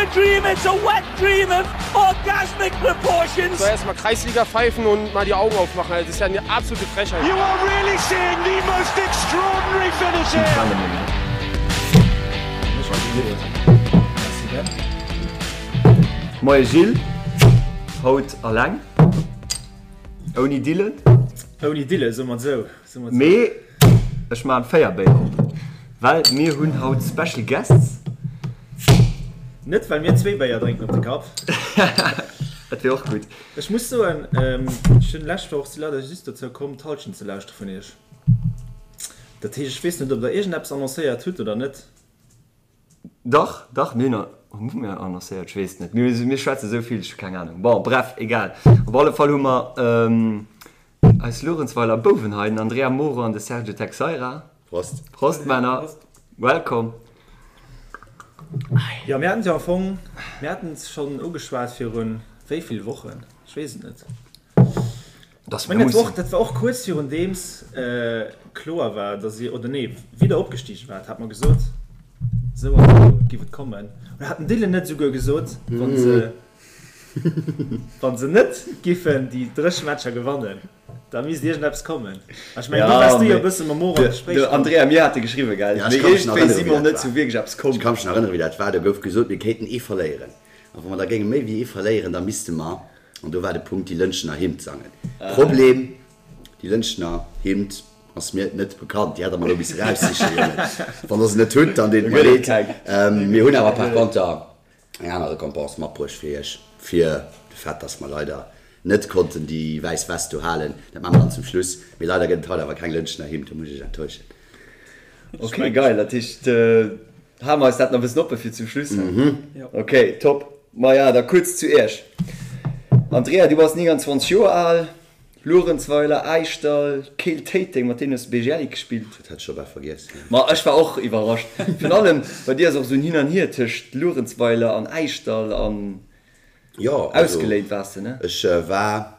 a dream, it's a wet dream of orgasmic proportions. Soll erst mal Kreisliga pfeifen und mal die Augen aufmachen, das ist ja eine absolute Frechheit. You are really seeing the most extraordinary finish here. Moie Gilles, haut alleng, ouni Dylan. Ouni Dylan, soe mer et esou. Mee ech maan 4 Béier op, well mir hunn haut Special Guests. Net well mir zwee Béier drénken op de Kapp. Dat wier och gutt. Ech muss soen, ech hunn lescht Woch, si leider just dozou komm d'Halschent ze lauschtere vun iech. Dat heescht, ech weess net ob der iergendeppes annoncéiert hutt oder net. Dach, dach, mir hunn, hu mir annoncéiert? Ech weess et net. Mir, mir schwätze sou vill, ech hu keng Anung. Bon, bref, egal. Op alle Fall hu mer eis Luerenzweiler Bouwen hei, den Andrea Moro an de Sergio Texeira. Prost. Prost, Männer. Welcome. Jo, mir haten et jo am Fong, mir haten et schonn ugeschwat virun wéi vill Wochen? Ech weess et net. Dass Ech mengen, dat war och, dat war och kuerz virun deems kloer war, dass dir, oder nee, wéi der opgestigen waart, hat mer gesot, esou an esou giff et kommen. Oder hat den Dylan net esouguer gesot, wa se, wa se net giffen déi dréch Matcher gewannen, da misst iergendeppes kommen. A ech mengen, do waars du jo e bësse mam Moro am Gespréich De Andrea, mir hate geschriwwen, gell? Ja, Mee ech ka mech nach iergendwéi erënnere si wéi mer dat net war. zu wierklech eppes komm. Ech ka mech nach erënnere wéi dat war. Do gouf gesot, mir kéinten ee verléieren. A wa mer da géinge méi wéi ee verléieren, da misste mer An do war de Punkt, déi Lëntgener Hymn sangen. Problem, déi Lëntgener Hymn ass mir net bekannt. Déi hätt der mer elo misse raussichen, Jongen. Wann der se net hutt, dann deet et mer leed. Mir hunn awer par konter eng aner Récompense matbruecht fir iech, fir de Fait, dass mer leider net konnten déi wäiss West do halen. Dat maache mer dann zum Schluss. Mee leider gëtt et haut awer keng Lëntgener Hymn, do muss ech iech enttäuschen. Ok, geil. Dat heescht, Hale mer eis dat nach e bëssen oppe fir zum Schluss. Ok, top. Maja, da kuerz zu Iech. Andrea, du bass 29 Joer al, Luerenzweiler, Äischdall, Keel Téiteng, mat deenen hues de BGL gespillt. Dat hat ech scho bal vergiess. Ma ech war och iwwerrascht. Virun allem bei dir ass och esou en Hin an Hier tëscht Luerenzweiler an Äischdall an ausgeléint waars de, ne? Ech war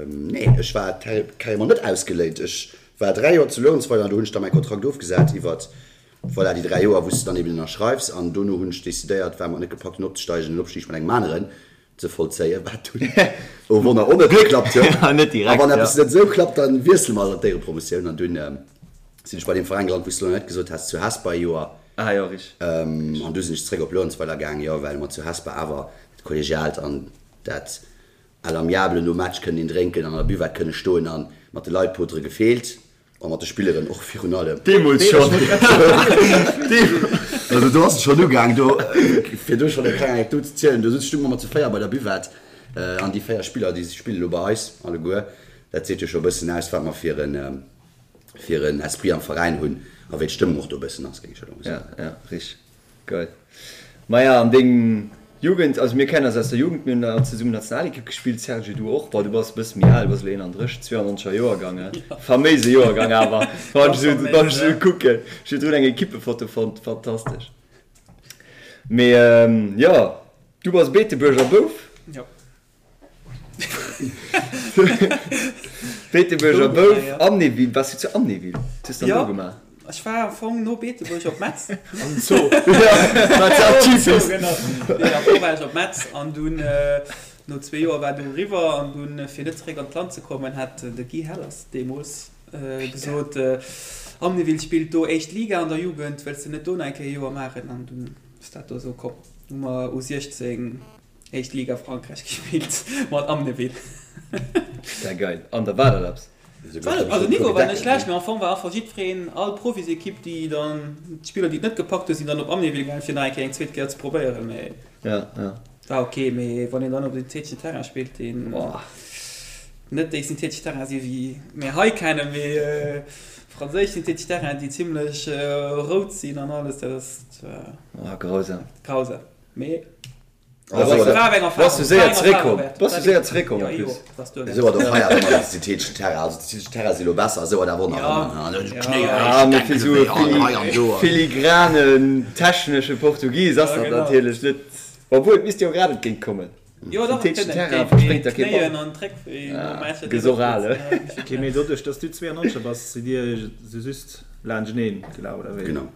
Nee, ech war carrément net ausgeléint. Ech war 3 Joer zu Luerenzweiler an do hunn ech da mäi Kontrakt ofgesat iwwert, voilà, déi 3 Joer, wou s de dann eben ënnerschreifs. An dono hunn ech decidéiert, well mer et net gepackt hunn opzesteigen, den Opstig mat engem aneren ze vollzéien, wat dunn, oh Wonner, och net geklappt huet. A wann eppes net esou klappt, da wiessele mer an d'Éierepromotioun. An dunn sinn ech bei deem Veräin gelant, wou s de elo net gesot has, zu Hesper e Joer. An du sinn ech zeréck op Luerenzweiler gaang, jo, well mer zu Hesper awer dat Kollegiaalt an dat À l'amiable nom Match kënnen een drénken an an der Buvette kënne stoen an mat de Leit potere gefeelt a mat de Spilleren och virun allem. Deemools schonn. Also do ass et schonn ugaang, do fir do schonn eng kleng Anekdot ze zielen, do stung mer mat zu 4 bei der Buvette an déi 4 Spiller déi spille lo bei eis alleguer. Dat seet jo scho e bëssen aus wat mer fir en fir en Esprit am Veräin hunn a wéi d'Stëmmung och do e bëssen ass, géing ech elo mol soen. Ja, ja, richteg. Geil. Maja, an deng Jugend, also mir kennen eis aus der Jugend, mir hunn all zesummen Nationalekipp gespillt, Serge du och, bon du bass e bësse méi al, du bass elo 31, 92er Joergang, he? Faméise Joergang awer, wann ech esou, wann ech esou kucken, ech hu drun eng Ekippefoto fonnt, fantastesch. Mee jo, du bass Beetebuerger Bouf? Jo. Beetebuerger Bouf, Amnéville, waars du zu Amnéville? Wat hues du dann do gemaach? Ech war am Fong no Beetebuerg op Metz. Am Zoo. Wat ja typisch. Genau. Nee, am Fong war ech op Metz an dunn no zwee Joer war du eriwwer an dunn fir net zeréck an d'Land ze kommen hat de Guy Hellers deemools gesot, Amnéville spillt do éischt Liga an der Jugend, wëlls de net do nach eng Kéier e Joer maachen? An dunn ass dat do esou komm. Hu mer U16 Éischt Liga Frankräich gespillt mat Amnéville. Sehr geil. An da war dat eppes? Also Niveau war net schlecht, mee am Fong war einfach jiddwereen, all Profisekipp déi dann, d'Spiller déi et net gepackt hunn, sinn dann op Amnéville gaangen fir nach eng Kéier eng zweet Kéier ze probéieren, mee Ja, ja. war ok. Mee wann een dann op syntheteschen Terrain spillt, deen net déi synthetesch Terrainen si wéi mir hei kennen, mee franséisch synthetesch Terrainen déi zimlech rout sinn an alles, dat ass Oh, grausam. grausam. Mee Bass du séier zeréckkomm? Bass du séier zeréckkomm en plus? Esou hat och hei awer ëmmer de syntheteschen Terrain. Also de syntheteschen Terrain si lo besser, esou hat awer och nach ëmmer ne Knéi Ah, mee fir esou e filigranen technesche Portugis ass dat natierlech net, obwuel et misst jo grad entgéint kommen. Syntheteschen Terrain verspréngt der kee Ball. Gëss och al, he? Ok, mee doduerch dass du 92er bass, sidd dir esou just laanschteneen gelaf, oder wéi? Genau.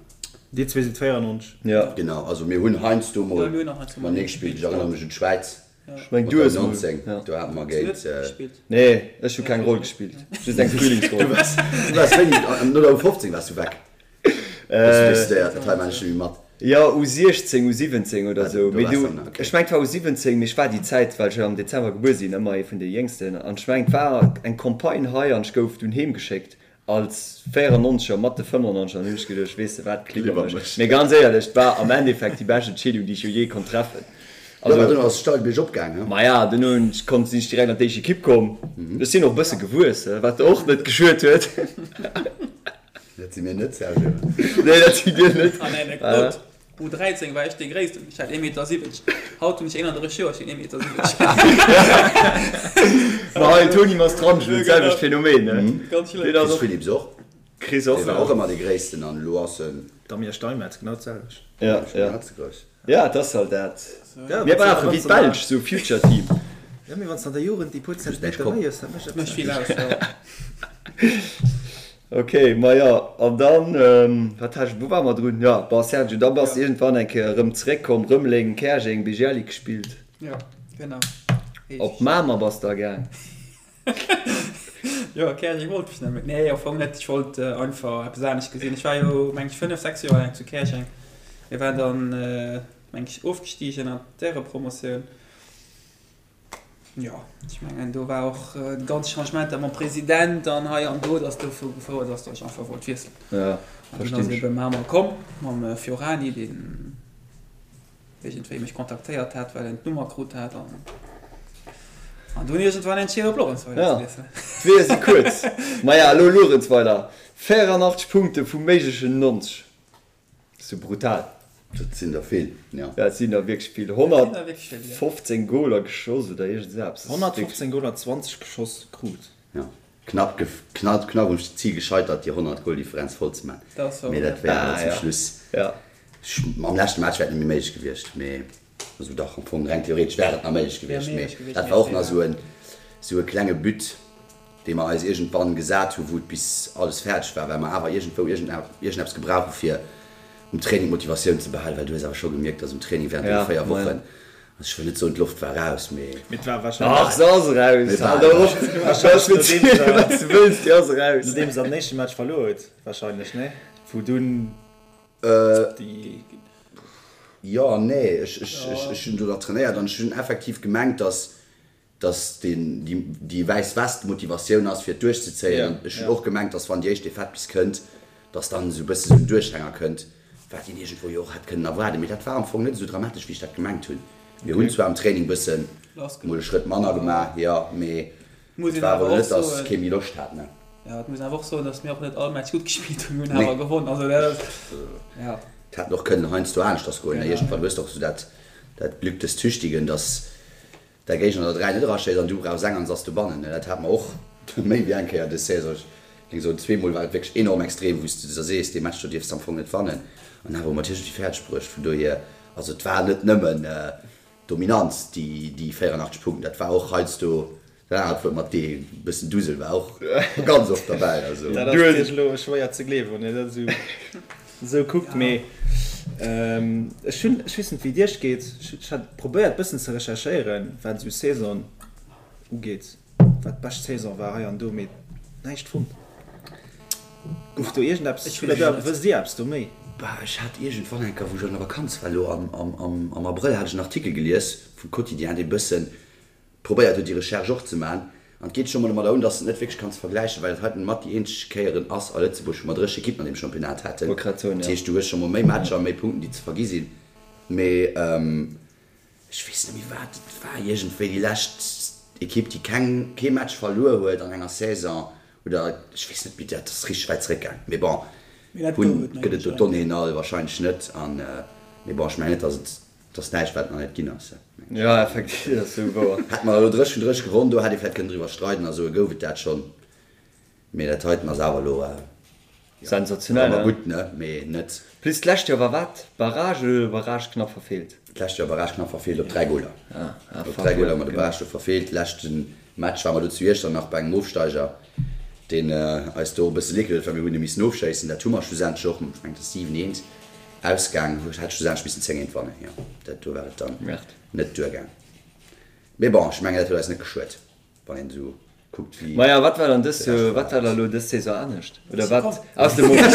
Dir zwee sidd 94. Ja. Genau, also mir hunn heiansdo mol Ja, mir hunn och heiansdo mol matenee gespillt. Ech erënnere mech un d'Schwäiz Ech meng mat du der hues mol, 19, ja. do hate mer Hues du géint. net gespillt? Nee, ech hu keng Roll gespillt, just eng Frühlingsroll. Du waars, du waars wéini? No der U15 waars du weg. Hues du decidéiert, dat hei maan ech net méi mat. Jo, U16, U17 oder Ah, sou. do Mee waars du, dann, okay. ech meng et war U17, mee ech war déi Zäit, well ech jo am Dezember gebuer sinn, ëmmer ee vun de Jéngsten. An ech meng et war eng Campagne hei an ech gouf dunn heem geschéckt Als 94er mat de 95er hunn ech geduecht, weess de wat, klibb mech. Mee ganz éierlech, et war am Endeffekt déi bescht Entscheedung, déi ech jo jee konnt treffen. Jo, mä duerno ass et steil biergop gaang, he? Maja, duerno hunn ech konnt, sinn ech direkt an d'éischt Ekipp komm. Ech sinn och e bësse gewuess, wat och net geschuet huet. Dat si mir net, Sergio. Nee, dat sidd dir net. An Anekdot, U13 war ech dee Gréissten, ech hat 1,70 Meter. Haut hunn ech 31 Joer, ech sinn 1,70 Meter. Ma hei, Tony Mastrangelo, d'selwecht Phänomen, ne? Ganz schlëmm. Deen ass Chris och. Philipps och. Chris och, Dee war ja. och ëmmer dee Gréissten an elo ass en. Damien Steinmetz, genau d'selwecht. Ja, ja. Net ze grouss. Ja, et ass halt dat. Ja, Mir brauche wéi d'Belsch esou Future Team. Ja, mee wann s de an der Jugend déi puer Zentimeter méi hues, dat mécht eppes Mécht aus. vill aus, ja. Ok, maja, an dann, wat hat ech, wou ware mer drun? Jo, bon, Sergio, da bass de iergendwann eng Kéier erëm zeréckkomm, Rëmeleng, Käerjeng, Bigelli gespillt. Jo, genau. Op Mamer bass de da gaang. Jo, Käerjeng wollt ech net méi. Nee, am Fong net, ech wollt einfach eppes anescht gesinn. Ech war jo, meng ech, 5, 6 Joer laang zu Käerjeng. Mir waren dann, meng ech, ofgestigen an d'Ärepromotioun. Jo, ech mengen do war och déi ganz Changementer mam President an hei an do, datt dozou gefouert ass, datt ech einfach wollt wiesselen. Ja, An dunn ass ebe Mamer komm mam Fiorani, deen iergendwéi mech kontaktéiert hat, well en d'Nummer krut hat an an dunn iergendwann entscheet op Luerenzweiler ze wiesselen. D'Weeër si kuerz. Maja, elo Luerenzweiler, 84 Punkte vu méiglechen 90. Sou brutal. Dat sinn der vill, jo. Dat sinn der wierklech vill. 115 Goler geschoss oder iergend esou eppes. 115 Goler, 20 geschoss krut. Jo, knapp, knapp, knapp um Zil gescheitert, déi 100 Goldifferenz voll ze man. Mee dat wär awer zum Schluss, am leschte Match wär et net méi méiglech gewiescht, mee also dach, am Fong reng theoretesch wär et nach méiglech gewiescht, mee dat war och nach esou en, esou e klenge But. dee mer eis iergendwann gesat hu wou et bis alles fäerdeg war, well mer awer iergendwou iergendeppes gebrauch hu fir um Training d'Motivatioun ze behalen, well du hues awer scho gemierkt, dass um Training während deene 4 Wochen, also ech wëll net soen d'Loft war raus, mee. Mee et war wahrscheinlech. Ach, se ass eraus, hal der op, verziel wat s de wëlls, déi ass eraus. Nodeems der den éischte Match verluer huet wahrscheinlech, nee? Wou dunn déi. Jo an nee, ech hunn do nach trainéiert an ech hunn effektiv gemengt, dass dass deen déi wäiss West d'Motivatioun ass fir et duerchzezéien an ech hunn och gemengt, dass wann déi éischt Defaite bis kënnt, dass dann esou e bësse sou en Duerchhänger kënnt, wat een iergendwou jo och hätt kënnen erwaarden. Mee dat war am Fong net esou dramatesch wéi ech dat gemengt hunn. Mir hunn zwar am Training bëssen mol e Schrëtt manner gemaach, jo, mee et war awer elo net, dass kee méi Loscht hat, ne. Jo, et muss een awer och soen, dass mir och net all Match gutt gespillt hunn, mir hunn awer gewonn, also dat ass, jo. Et hätt och kënnen heiansdo aneschters goen, ne, iergendwann hues de och esou dat dat Glück des Tüchtigen, dass Däi Géigner der 3 net eraschéisst an du brauchs eng an se ass dobannen. Dat hate mer och méi wéi eng Kéier dës Saison. Ech géing soen, zweemol war et wierklech enorm extrem, wou s de der sees, dee Match do dierfs de am Fong net wannen. An awer hu mer et iergendwéi fäerdeg bruecht. Vun dohier, also et war net nëmmen Dominanz, déi 84 Punkten, dat war och heiansdo dat anert Wuert mat D, e bëssen Dusel war och ganz oft derbäi. Also. Dat ass natierlech elo schwéier ze gleewen, wann een dat esou. Esou kuckt, mee ech hunn, ech weess net wéi et iech geet, ech hat probéiert bëssen ze recherchéieren wat esou Saison ugeet, wat d'bescht Saison war hei an do, mee näischt fonnt. Gouf do iergendeppes, oder wësst dir eppes do méi? Bah, ech hat iergendwann eng Kéier, wou ech an der Vakanz war, elo am Abrëll, hat ech en Artikel gelies vum Quotidien, dee bëssen probéiert huet déi Recherche och ze man, an et geet scho mol domadder un, dass de et net wierklech kanns vergläichen, well et heiten mat déi eenzeg Kéieren ass a Lëtzebuerg, wou mer 30 Ekippen an deem Championnat haten. Dat heescht, du hues scho mol méi Matcher, méi Punkten, déi ze vergi sinn. Mee ech weess net méi wat et war, iergendwéi déi lescht Ekipp, déi keng, kee Match verluer huet an enger Saison, oder ech weess net méi, dat ass richteg wäit zeréckgaang. Mee bon, hunn, gëtt et do d'Donnéeën all wahrscheinlech net an, mee bon, ech mengen net, dass et Et ass näischt wat nach net ginn ass. Jo effektiv, dat ass sou wouer. Hätt mer elo 30 vun 30 gewonn, do hätt ee vläit kënnen driwwer streiden a soe gouf et dat schonn. Mee dat heiten ass awer elo, jo, Sensationell, war ne? gutt, ne, mee net. Plus d'lescht Joer war wat? Barrage oder Barrage knapp verfeelt? D'lescht Joer Barrage knapp verfeelt op 3 Goler. Ah, ah Op fuck, 3 Goler jo, hu mer de genau. Barrage do verfeelt. Leschte Match ware mer do zu Iechternach bei engem Ofsteiger, deen eis do e bësse leed gedoen huet, well mir hunn e missen ofschéissen. Dat hu mer schlussendlech och, ech mengen et ass 7, 1. Ausgaang, hat schlussendlech missen 10 géint wannen, jo, dat do war et dann net duergaang. Mee bon, ech mengen dat huet eis net geschuet, wann een esou kuckt wéi. Maja, wat war dann dës Joer, wat war da lo dës Saison anescht? Oder wat ass de Moment?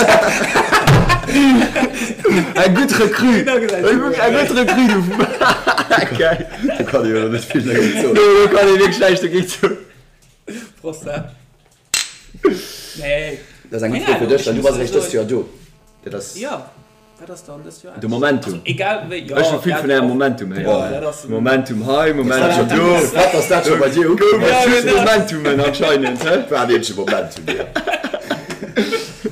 Eng gutt Recrue! Eng gutt Recrue, du! Geil! Do kann ee jo elo net vill dergéint soen. Do kann ee wierklech näischt dergéint soen. Prost, hä? Nee. Dat ass eng gutt Fro fir dech, well du bass eréischt dëst Joer do. Dat ass. Jo, wat ass dann dëst Joer De Momentum. Also egal wéi, jo. Ech hu vill vun ärem Momentum héieren. Momentum hei, Momentum do. Wat ass dat scho bei dir ukomm? Ja, genau. Momentumen anscheinend, hä? War en eenzege Momentum, jo.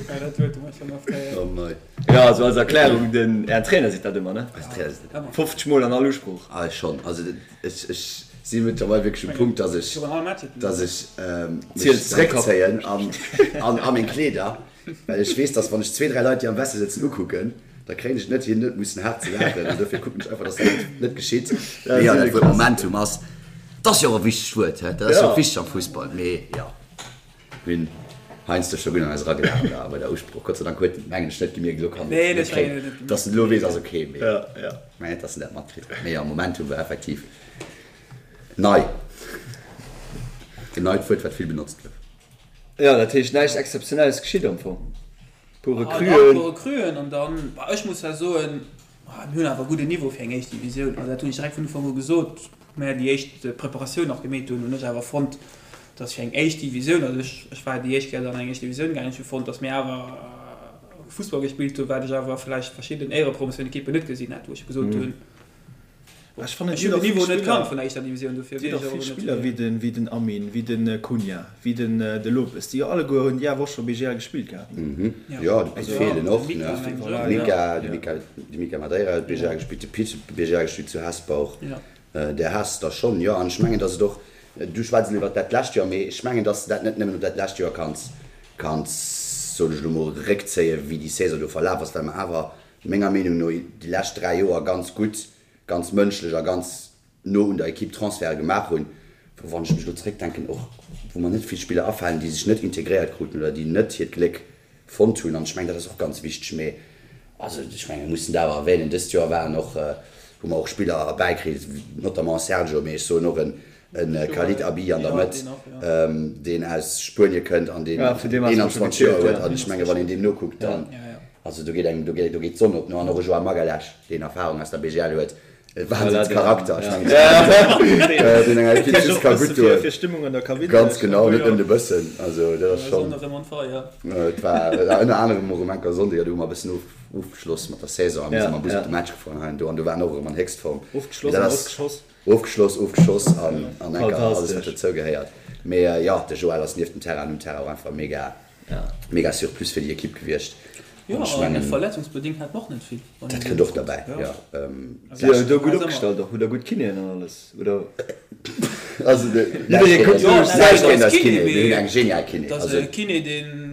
Ja, dat huet mer schonn oft héieren. Oh mei. Jo, also als Erklärung, den, ären Trainer seet dat ëmmer, ne? Eisen Trainer seet dat ëmmer. 50 Mol an all Usprooch. Ah, schonn. Also ech, ech si mëttlerweil wierklech um Punkt, dass ech, dass ech mech zréckzéien an, an, a meng Kleeder, well ech weess, dass wann ech zwee, dräi Leit, déi am Vestiaire sëtzen, ukucken, da kréien ech et net hin, net mussen haart ze laachen. An dofir kucken ech einfach, dass dat net geschitt. Mee jo, dat Wuert Momentum ass, dat ass jo och e wichtegt Wuert, hä? Dat ass jo och wichteg am Fussball. Mee jo. Mir hunn heiansdo scho gutt an eis eragelaacht da bei der Usprooch. Gott sei Dank huet en, mengen ech, net gemierkt. Elo kann en et kréien. Dass en elo weess, ass ok, mee ech mengen net, dass en dat matkritt huet. Mee jo, Momentum war effektiv nei. En neit Wuert, wat vill benotzt gouf. Jo, dat heescht, näischt Exzeptionelles geschitt am Fong. Puer Recruen. Ah, puer Recruen an dann, bah, ech muss ja soen, mir hunn awer e gudden Niveau fir eng éischt Divisioun. Also dat hunn ech direkt vun Ufank u gesot, wou mir déi éischt Preparatioun nach gemeet hunn, hunn ech awer fonnt, datt fir eng éischt Divisioun, also ech, ech war déi éischt Kéier an eng éischt Divisioun gaangen, ech hu fonnt, datt mir awer Fussball gespillt hunn, wat ech awer vläicht verschidden Éierepromotioun-Ekippen net gesinn hätt, wou ech gesot hunn, Ech fannen, Ech hunn den Niveau net kannt vun der éischter Divisioun, dofir weess ech och vill Spiller wéi den, wéi den Amin, wéi den Cunha, wéi den de Lopes, déi jo alleguer hunn déi awer och scho BGL gespillt gehat. Jo, de Pit feelen och, ne? De Mika, de Mika, de Mika Madeira huet BGL gespillt, de Pit huet BGL gespillt zu Hesper och. Där has der schonn, jo. An ech mengen, datt et och, du schwätz elo iwwert dat lescht Joer, mee ech mengen, datt s de dat net nëmmen op dat lescht Joer kanns, kanns, soen ech elo mol, réckzéien, wéi déi Saison do verlaf ass, well mer awer menger Meenung no déi lescht 3 Joer ganz gutt, ganz mënschlech a ganz no un der Equipe Transferte gemaach hunn, wou, wann ech mech elo zréckdenken, och wou mer net vill Spiller afalen, déi sech net integréiert kruten oder déi net hiert Gléck fonnt hunn. An ech mengen, dat ass och ganz wichteg. Mee also ech mengen, mir mussen dat awer erwähnen, dëst Joer waren och, hu mer och Spiller erbäikritt, notamment Sergio, mee ech soen och en E Khalid Abi an der Mëtt, deen aus Spuenie kënnt an deen 21 Joer huet. An ech menge wann een deem nokuckt, dann, also do geet engem, do geet, do geet d'Sonn op. No an och e Joao Magalhães, deen Erfarung aus der BGL huet, e Wahnsinnscharakter, ech mengen, deen enger Ekipp just ka gutt doen. Ganz genau, net nëmmen e bëssen. Also dat ass schonn, et war ënner anerem och um Enker Sonndeg, do hu mer e bëssen ofgeschloss mat der Saison a mir si mam Bus op de Match gefuer an hei an do an do waren och erëm an Héchstform. Ofgeschloss an ausgeschoss. Ofgeschloss, ofgeschoss an an enker alles wat dozou gehéiert. Mee jo, de Joël ass nieft dem Terrain an um Terrain och einfach mega, mega Surplus fir déi Ekipp gewiescht. Jo, An ech an mengen, verletzungsbedingt hat mer och net vill. dat kënnt och derbäi, jo. Si huet do gutt opgestallt och, hutt der gutt Kinéen an alles, oder? Also de, Jidderee kuckt Jo, sech näischt géint eis Kiné, mir hunn eng genial Kiné. Dat ass e Kiné, deen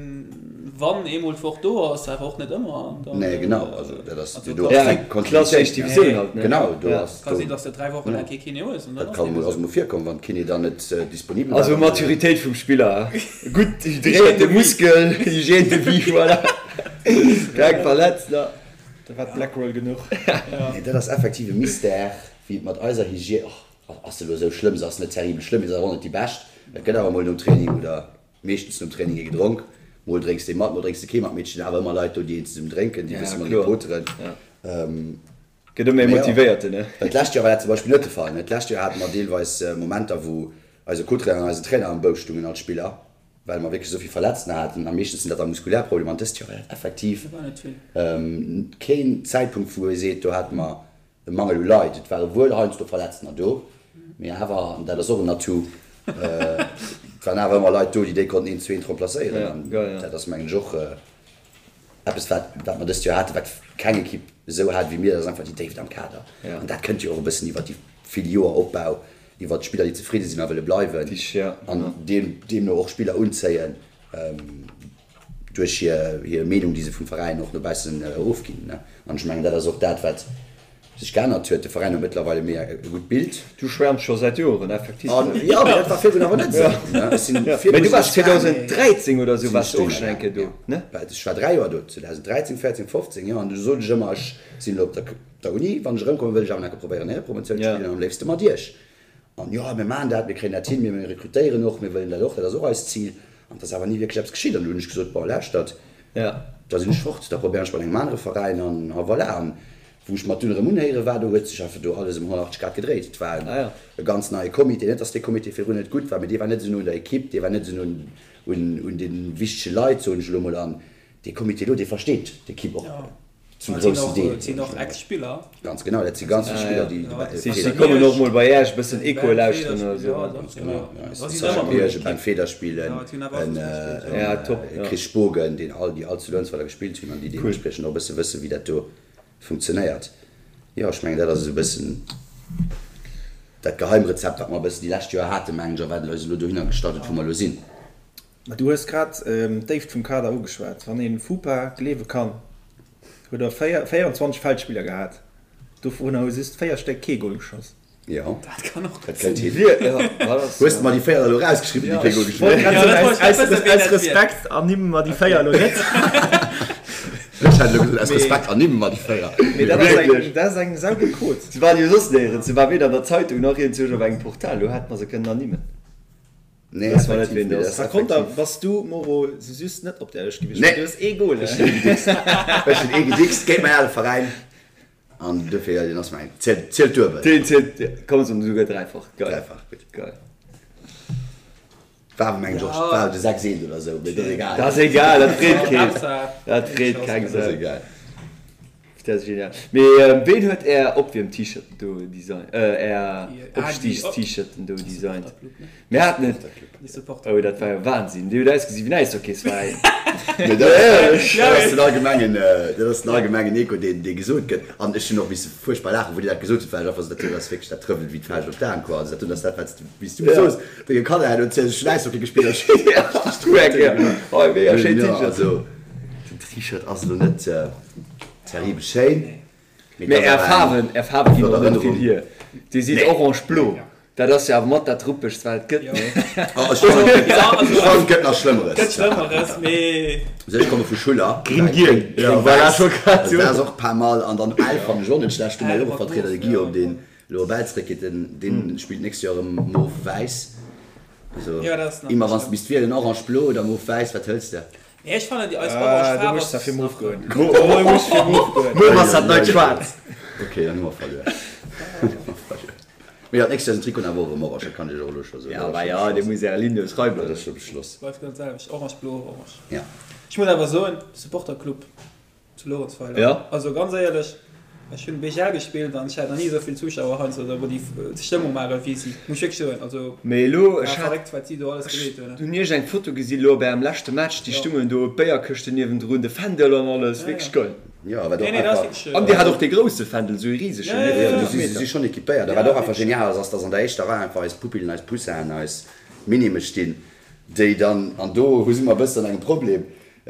wann eemol d'Woch do ass, awer och net ëmmer. An dann, Nee, genau, also dat ass, also do kann ass sinn, keng Kontinuitéit. Éischt Divisioun halt, ne? Genau, do ass, Ka sinn, dass de 3 Woche laang kee Kiné hues an dann Dat ass kann deem mol, ass esou. mol virkomm, wann d'Kiné dann net disponibel war. Also Maturitéit vum Spiller, gutt hydréierte Muskel, Hygiène de vie, voilà, keng verletzt, ne? Da war d'Blackroll genuch. Nee, dat ass effektiv e Mystère, wéi et mat eiser Hygiène, och ass se elo esou schlëmm, se ass net terribel schlëmm, mee se ass awer och net déi bescht. Et gëtt awer mol nom Training oder meeschtens nom Training ee gedronk. Mol drénks de mat, mol drénks de kee mat, mee et stinn awer ëmmer Leit do, déi een zesummen drénken, déi e bësse mat ee poteren. Gëtt ëmmer ee Motivéierten, ne? Well d'lescht Joer war dat zum Beispill net de Fall, ne? D'lescht Joer hate mer deelweis Momenter, wou eise Co-Trainer an eisen Trainer am Bousch stungen als Spiller, well mer wierklech esou vill Verletzten haten. A meeschtens sinn dat da muskulär Problemer. An dëst Joer war dat effektiv keen Zäitpunkt, wou ee seet, do hate mer e Mangel u Leit. Et ware wuel heiansdo Verletztener do, mee awer, an dat ass och en Atout, et waren awer ëmmer Leit do, déi déi konnten eent zu eent remplacéieren. An dat ass, mengen ech, och Eppes wat wat mer dëst Joer haten, wat keng Ekipp esou hat wéi mir, dat ass einfach déi Déift am Kader. An dat kënnt jo och e bëssen iwwert déi vill Joer Opbau, iwwert d'Spiller déi zefridde sinn a wëlle bleiwen an deemno och Spiller unzéien duerch hir hir Meenung déi se vum Veräin och no baussen ofginn. An ech mengen dat ass och dat wat. sech geännert huet. De Veräin huet mëttlerweile méi e gutt Bild. Du schwärms scho säit Joren, effektiv. An jo, mee dat war virdrun awer net esou, ne? Ech sinn Mee virdru du sinn waars ech gaangen. 2013 oder esou Sinn waars ech du och dohinner schonn eng gaangen, Kéier do, jo. ne? Well ech war 3 Joer do, 2013, 14, 15, jo. An du sot ech ëmmer, ech sinn elo op der der Uni, wann ech erëmkommen, wëll ech awer nach eng Kéier probéieren, Éierepromotioun ze Ja. spillen an am léifste mat iech. An jo, mir maachen dat, mir kréien dat hin, mir rekrutéieren och, mir wëllen dat och, dat ass och eist Zil. An et ass awer ni wierklech eppes geschitt. An du hunn ech gesot, bon, lauschtert, da sinn ech fort, da probéieren ech bei engem anere Veräin an a voilà. An wou ech mat dunn erëm unhéiere war, do huet sech einfach do alles ëm 180 Grad gedréit. Et war e ganz neie Comité, net datt dee Comité virdrun net gutt war, mee dee war net esou no un der Equipe, dee war net esou no un de wichtege Leit, soen ech elo mol. An dee Comité elo, dee versteet d'Equipe och. Zum groussen Deel. Et sinn och Ex-Spiller. Ganz genau, dat si ganz vill Spiller, déi dobäi Si si kommen och mol bei Äech e bëssen Echo lauschteren oder esou. Ganz genau, ja. Sascha Miersch, e Ben Federspiel, e Chris Spogen, deen all, déi all zu Luerenzweiler gespillt hunn an déi deementspriechend och e bësse wëssen, wéi dat do funktionéiert. Jo, ech mengen, dat ass esou e bëssen dat Geheimrezept, wat mer e bëssen déi lescht Joer haten, mengen ech, a wat eis elo dohinner gestallt huet, wou mer elo sinn. Mä du hues grad d'Déift vum Kader ugeschwat. Wann ee FUPA gleewe kann, huet der 24 Feldspiller gehat, dovunner hu just 4 Stéck kee Gol geschoss. Jo, Dat kann och dat kënnt hin. Hues de mer déi 4 elo erausgeschriwwen, déi kee Gol geschoss hunn? Aus Respekt ernimme mer déi 4 elo net. Ech hätt elo gesot, aus Respekt ernimme mer déi 4. Mee dat ass eng, dat ass eng saugutt Quot. Se waren jo soss néierens, se war weder an der Zeitung nach iergendwou op engem Portal, do hätt mer se kënnen ernimmen. Nee, Wëss mer net, effektiv, ween nee, dat dat ass. ass Par konter effektiv. bass du, Moro, sou just net op der Lëscht gewiescht, Nee. well du hues ee Goal. Ech hunn ee gedickst. Ech hunn ee gedickst géint mäin ale Veräin. An dofir, jo, deen ass mäin. Zielt, zielt duebel. Deen zielt, komm, soen esouguer dräifach. Geil. Dräifach, gutt. Geil. War awer, mengen ech, och, war de 6 eent oder sou, mee dat ass egal. Dat ass egal, dat freet keen. Dat freet keng Dat ass Sau. egal. Dat ass genial. Mee ween huet är Opwierm-T-Shirten do designt, är Opstiigs-T-Shirten do designt? Mir haten et, oh dat war jo Wahnsinn, déi huet ausgesi wéi en Äishockey-Veräin. Mee dat ass den allgemengen, dat ass den allgemengen Echo, deen, dee gesot gëtt. An ech hunn och misse fuerchtbar laachen, wou Dir dat gesot hutt, well ech einfach sot, dat ass wierklech, dat trëffelt wéi d'Fauscht op d'Aen, quoi. Also dat hunn ass dat, wat s du, wéi s du soos, denge Kanner herno ziels, ech hunn Äishockey gespillt a Hei, mega schéin T-Shirt. Also den T-Shirt ass elo net. Terribel schéin. Mee är Faarwen, är Faarwe ginn och net vill hier. Dir sidd orange-blo, dat ass jo awer mat dat ruppegst wat et gëtt, nee? Oh, ech fannen, ech fannen et gëtt nach Schlëmmeres. Gëtt Schlëmmeres, mee. Also ech komme vu Schuller. Gring-giel, jo, voilà, ech wollt grad Also dat ass soen. och pas mal. An dann Ell fannen ech och net schlecht. Do hu mer jo och e Vertrieder, de Guillaume, deen elo op Ell zeréckgeet. Den, deen spillt d'nächst Joer erëm mauve-wäiss. Also immer wann s de misst wielen, orange-blo oder mauve-wäiss, wat hëls de? Nee, ech fannen déi eis orange Du Faarf muss da ass fir nach Move goen. Du muss fir Move goen. Move ass dat neit Schwaarz. Ok, dann hu mer verluer. Mee jo, d'nächst Joer sinn d'Trikoten awer och erëm orange, dat kann ech iech och elo scho soen. Ja, bah ja, dir musst äre Ligne schreiwen. Dat ass scho beschloss. Bleift genau d'selwecht, orange, blo, orange. Ja. Ech muss awer soen, Supporterclub Zu Lorentzweiler. Ja. Also ganz éierlech, ech hunn BGL gespillt an ech hat nach ni esou vill Zuschauer heiansdo oder wou déi Stëmmung maachen wéi si, muss ech wierklech soen. Also Mee elo, war ech hat, verréckt wat si do alles ech gemeet hunn. hunn iergend eng Foto gesi lo bei ärem leschte Match, déi Jo. stungen do, d'Béierkëschten niewendrun, de Fändel an alles, Ja, wierklech ja. geil. Jo, wat och Nee, nee, dat ass einfach. wierklech. An dir hat och dee grousse Fändel, esou ee risegen, Ja, ne, ja, ja, 5 Jo, si Meter. si schonn equipéiert. A Ja, wat och einfach wierklech. genial ass, ass dass an der éischter Rei einfach eis Pupillen, eis Poussin'en, eis Minimme stinn, déi dann, an do hu si mer e bëssen engem Problem,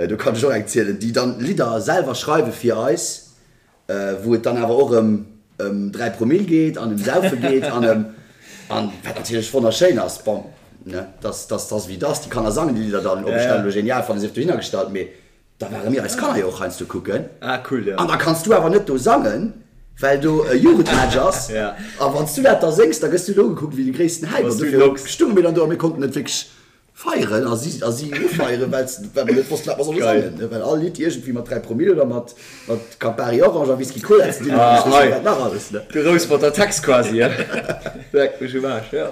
Do kann ech och eng zielen, déi dann Lidder selwer schreiwe fir eis, wou et dann awer och ëm ëm 3 Promille geet an ëm Saufe geet an ëm, an wat natierlech wonnerschéin ass, bon, ne, dass dass dass wéi dass, déi Kanner sangen déi Lidder dann, ob ech dat elo genial fannen, sief dohinner gestallt, mee da ware mir eis Kanner jo och heiansdo kucken. Ah cool, jo. An da kanns du awer net do sangen, well do e Jugendmatch ass, a wann s du dat da séngs, da gëss du do ugekuckt wéi de gréissten Häip, an dofir stounge mir dann do a mir konnten net wierklech Feieren a si a si ufeieren, well well mer net wossten, wat mer solle sangen, ne, well all Lidd iergendwéi mat 3 Promille oder mat mat Campari Orange a Whisky Cola ze dinn huet, ech weess net wat nach alles, ne. De Rouspert Text quasi, he? Leck mech um Aarsch, jo.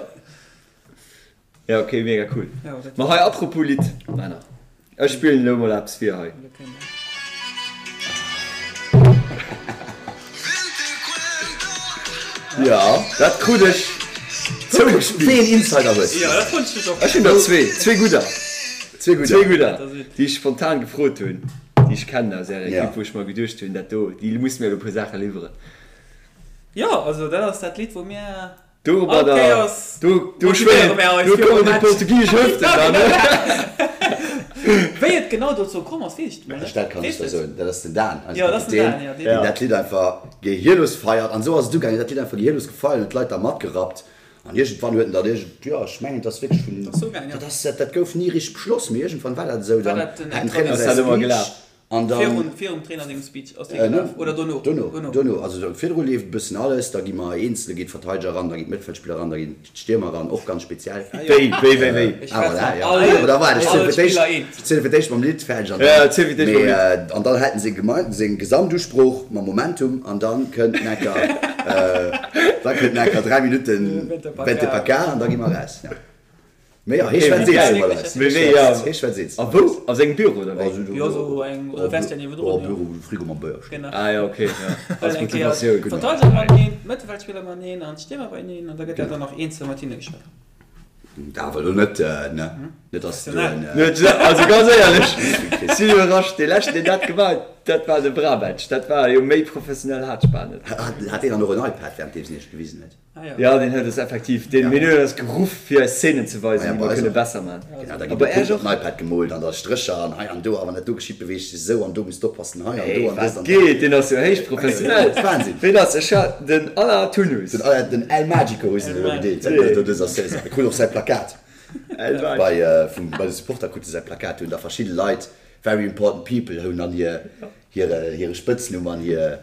Jo, ok, mega cool. Ma hei, apropos Lidd, Männer, ech spillen elo mol eppes vir hei. Jo, dat krut ech zougespillt. Wéi een Insider hues du? Ech hunn der zwee, zwee gudder. Zwee gudder. Zwee gudder, déi ech spontan gefrot hunn, déi ech kennen aus ärer Ekipp, wou ech mer geduecht hunn, dat do, déi musse mir elo e puer Saache liwweren. Jo, also dat ass dat Lidd, wou mir Domadder, do, do schwéngen, do kommen déi portugisesch Hëften dann, ne? Wéi et genau dozou komm ass, weess ech net. Dat kann ech der soen, dat ass den Dan, eise Jo, dat ass den Kapitän, Dan, jo, deen. deen dat Lidd einfach gehirlos feiert. An esou ass et ugaangen, dat Lidd einfach gehirlos gefeiert, huet d'Leit da matgerappt. An iergendwann huet en dat iergend, jo, ech mengen, et ass wierklech vun, Dat ass ugaangen, jo. dat ass, dat gouf ni richteg beschloss, mee iergendwann war dat esou. War Dann dat den hat den Trainer Trainer säi Ass dat ëmmer Speech gelaf? an dann. Virun, virum Trainer sengem Speech ass dee gelaf oder dono? Dono, Dono. dono. Also do virdru leeft e bëssen alles, da gi mer eenzel, da geet d'Verteideger eran, da ginn d'Mëttfeldspiller eran, da ginn d'Stiermer eran, och ganz speziell. Wéi, wéi, wéi, wéi? Ech Ah, war voilà, zwar ja. all, Oder waart, ech ziele all fir d'éischt, Spiller eent. ech ziele fir d'éischt mam Lidd fäerdeg an Ja, dann, ziel fir d'éischt mam mee, Lidd. an dann hält en seng Gemein, seng Gesamtusprooch mam Momentum an dann kënnt necker, da kënnt necker 3 Minutten Vente pa Vente ca. pa ca an da gi mer eraus, ja. Mee jo, hee Okay, schwätzt wéi eens geil. iwwer eis. Mee wéi, ja. Hee schwätzt eens. A wou? A sengem Büro oder wéi? Also do, Jo, sou eng, oder Vestiaire niewendrun, jo, jo. Büro, wou de Frigo mam Béier steet. Genau. Ah jo, okay, ja. Well Als eng Kéier Motivatioun. Genau. d'Verteideger mateneen, d'Mëttelfeldspiller mateneen an d'Stiermer beieneen an da gëtt dat dann nach eenzel mat hinne geschwat. Dat awer elo net, ne? Net dass du en. Net, also ganz éierlech, sinn iwwerrascht, dee leschten deen dat gemaach huet, dat war de Brabec, dat war jo méi professionell hat ech bal net. Hat deen dann och en iPad währenddeems en iech gewisen huet? Jo, deen huet eis effektiv, deen huet eis geruff fir eis Szenen ze weisen, déi mer kënne besser man. Genau, da ginn de Punkt op den iPad gemoolt an da Strécher an hei an do, a wann dat do geschitt, beweegt sech esou an do muss d'oppassen hei an do an dëst an dat. Geet, deen ass jo héich professionell. Wahnsinn! Ween ass? Ech hat den Alain Tounus. Den Alain, den El Magico hu se elo gedeelt säit no dëser Saison. E krut och säi Plakat bei, vum, bei de Supporter krut e säi Plakat. Do hunn da verschidde Leit, very important people, hunn dann hir, hire, hire Spëtznumm an hir,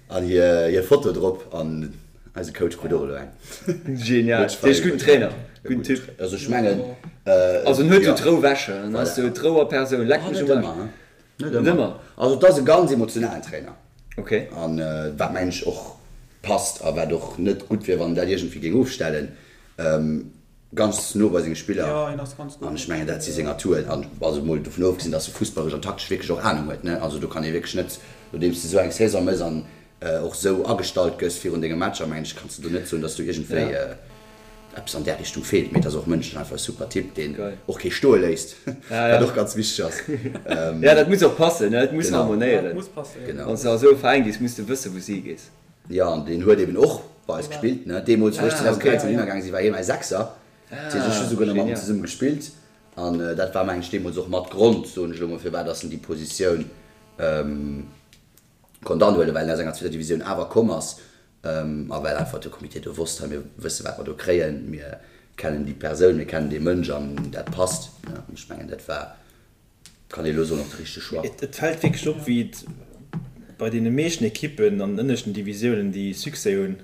An hir Foto drop an eise Coach krut och elo eng. Genial, dee ass gudden Trainer, gudden Typ. Also ech mengen. Also en huet jo d'Rou wäsche, en ass jo d'Rou a Persoun, leck mech um Aarsch. Net ëmmer. Also et ass e ganz emotionalen Trainer. Ok. An wat mengen ech och passt a wat och net gutt wier wann en dat iergendwéi géing ofstellen. Ganz no bei senge Spiller an ech mengen dat si seng Atouen an also mol dovun ofgesinn, datt e fussballeresch an taktesch wierklech och Anung huet ne. Also do kann ee wierklech net, nodeems de esou eng Saison méchs an och esou agestallt gëss virun denge Matcher, mengen ech, kanns de do net soen, datt do iergendwéi eppes an där Richtung feelt. Mee et ass och mënschlech einfach e super Typ, deen och kee stoe léisst, wat och ganz wichteg ass. Jo, dat muss och passen, et muss harmonéieren. Wann s de a sou e Veräin gees, muss de wëssen, wou s de higees. Jo, an deen huet eben och bei eis gespillt, ne. Deemools, wou ech 2013 hinner gaange sinn, war hie mäi Sechser. Dat heescht, ech hu souguer nach mat em zesumme gespillt. An dat war, mengen ech, deemools och mat Grond, soen ech elo mol, firwat dass en déi Positioun konnt anhuelen, well en aus enger zweeter Divisioun awer komm ass a well einfach de Comité do wosst, hei, mir wësse wat mer do kréien, mir kennen déi Persoun, mir kennen dee Mënsch an dat passt, ne. An ech mengen, dat war Kann ee lo soen, och de richtege Choix. Et fält wierklech op, wéi et bei deene meeschten Ekippen an den ënneschten Divisiounen, déi Succès hunn,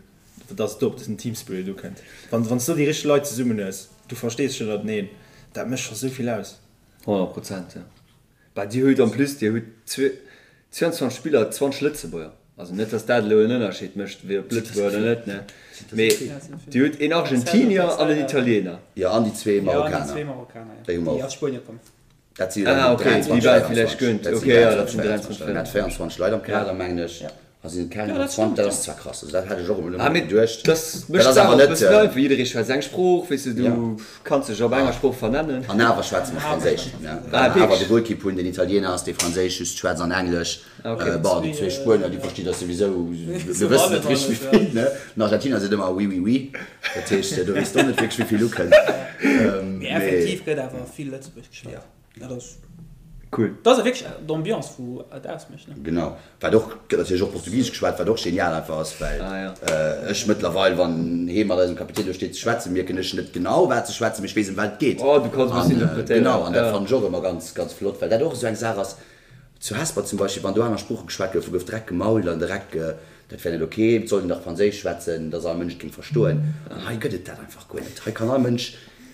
dass et do op dësen Teamspirit ukënnt. Wann s du déi richteg Leit zesummen hues, du verstees dech ënnerteneen, dat mécht scho sou vill aus. 100 Prozent, jo. Bah, dir hutt en plus, dir hutt 22 Spiller, 20 Lëtzebuerger. Also net, dass dat elo en Ënnerscheed mécht, wéi ob Lëtzebuerger oder net, ne? Mee dir hutt een Argentinier an en Italiener. Jo, an déi zwee Marokkaner, déi hu mer och. Dat si jo dann Ah, okay, 23, déi war villäicht 24. gönnt. Dat si Okay, ja, dat sinn 23, 23, 24. Mir hat 24 Leit am Kader, mengen ech. A sinn et keng Ja, dat 20? stimmt, Dat ja. ass zwar krass, also dat hat ech och emol Ah, net mee geduecht. dat Dat mécht ass d'Saach awer och e net, bëssen einfach. Jidderee schwätzt eng Sprooch, weess de, du ja. kanns dech op enger Sprooch vernennen. An awer schwätze mer Awer Franséisch, schwätze ne? mer Well Ah, mer awer de wierklech? Golkipp hunn, deen Italiener ass, dee Franséisch just schwätzt an Englesch. Ah, okay. Bon, déi zwee Spuenier, déi versti der souwisou, mir wëssen net richteg wéi vill, ne? Den Argentinier seet ëmmer oui, oui, oui. Dat heescht, do weess de och net wierklech wéi vill ukënnt. Mee effektiv gëtt awer vill Lëtzebuergesch geschwat. Dat ass Cool. Dat ass wierklech d'Ambiance wou et ausmécht, ne? Genau. Wat och, gëtt natierlech och Portugisesch geschwat, wat och genial einfach ass, well ech mëttlerweil, wann hee mat eisem Kapitän do steet ze schwätzen, mierken ech net genau wat se schwätzen, mee ech weess ëm wat et geet. Oh, du kanns e bëssen interpretéieren. Genau, an dat fannen ech och ëmmer ganz, ganz flott, well dat och esou eng Saach ass, Zu Hesper zum Beispill, wann do aner Sprooche geschwat goufen, gouf direkt gemault an direkt, dat wär net ok, et sollt een dach Franséisch schwätzen, dass all Mënsch et géing verstoen. An hei gëtt et dat einfach guer net. Hei kann all Mënsch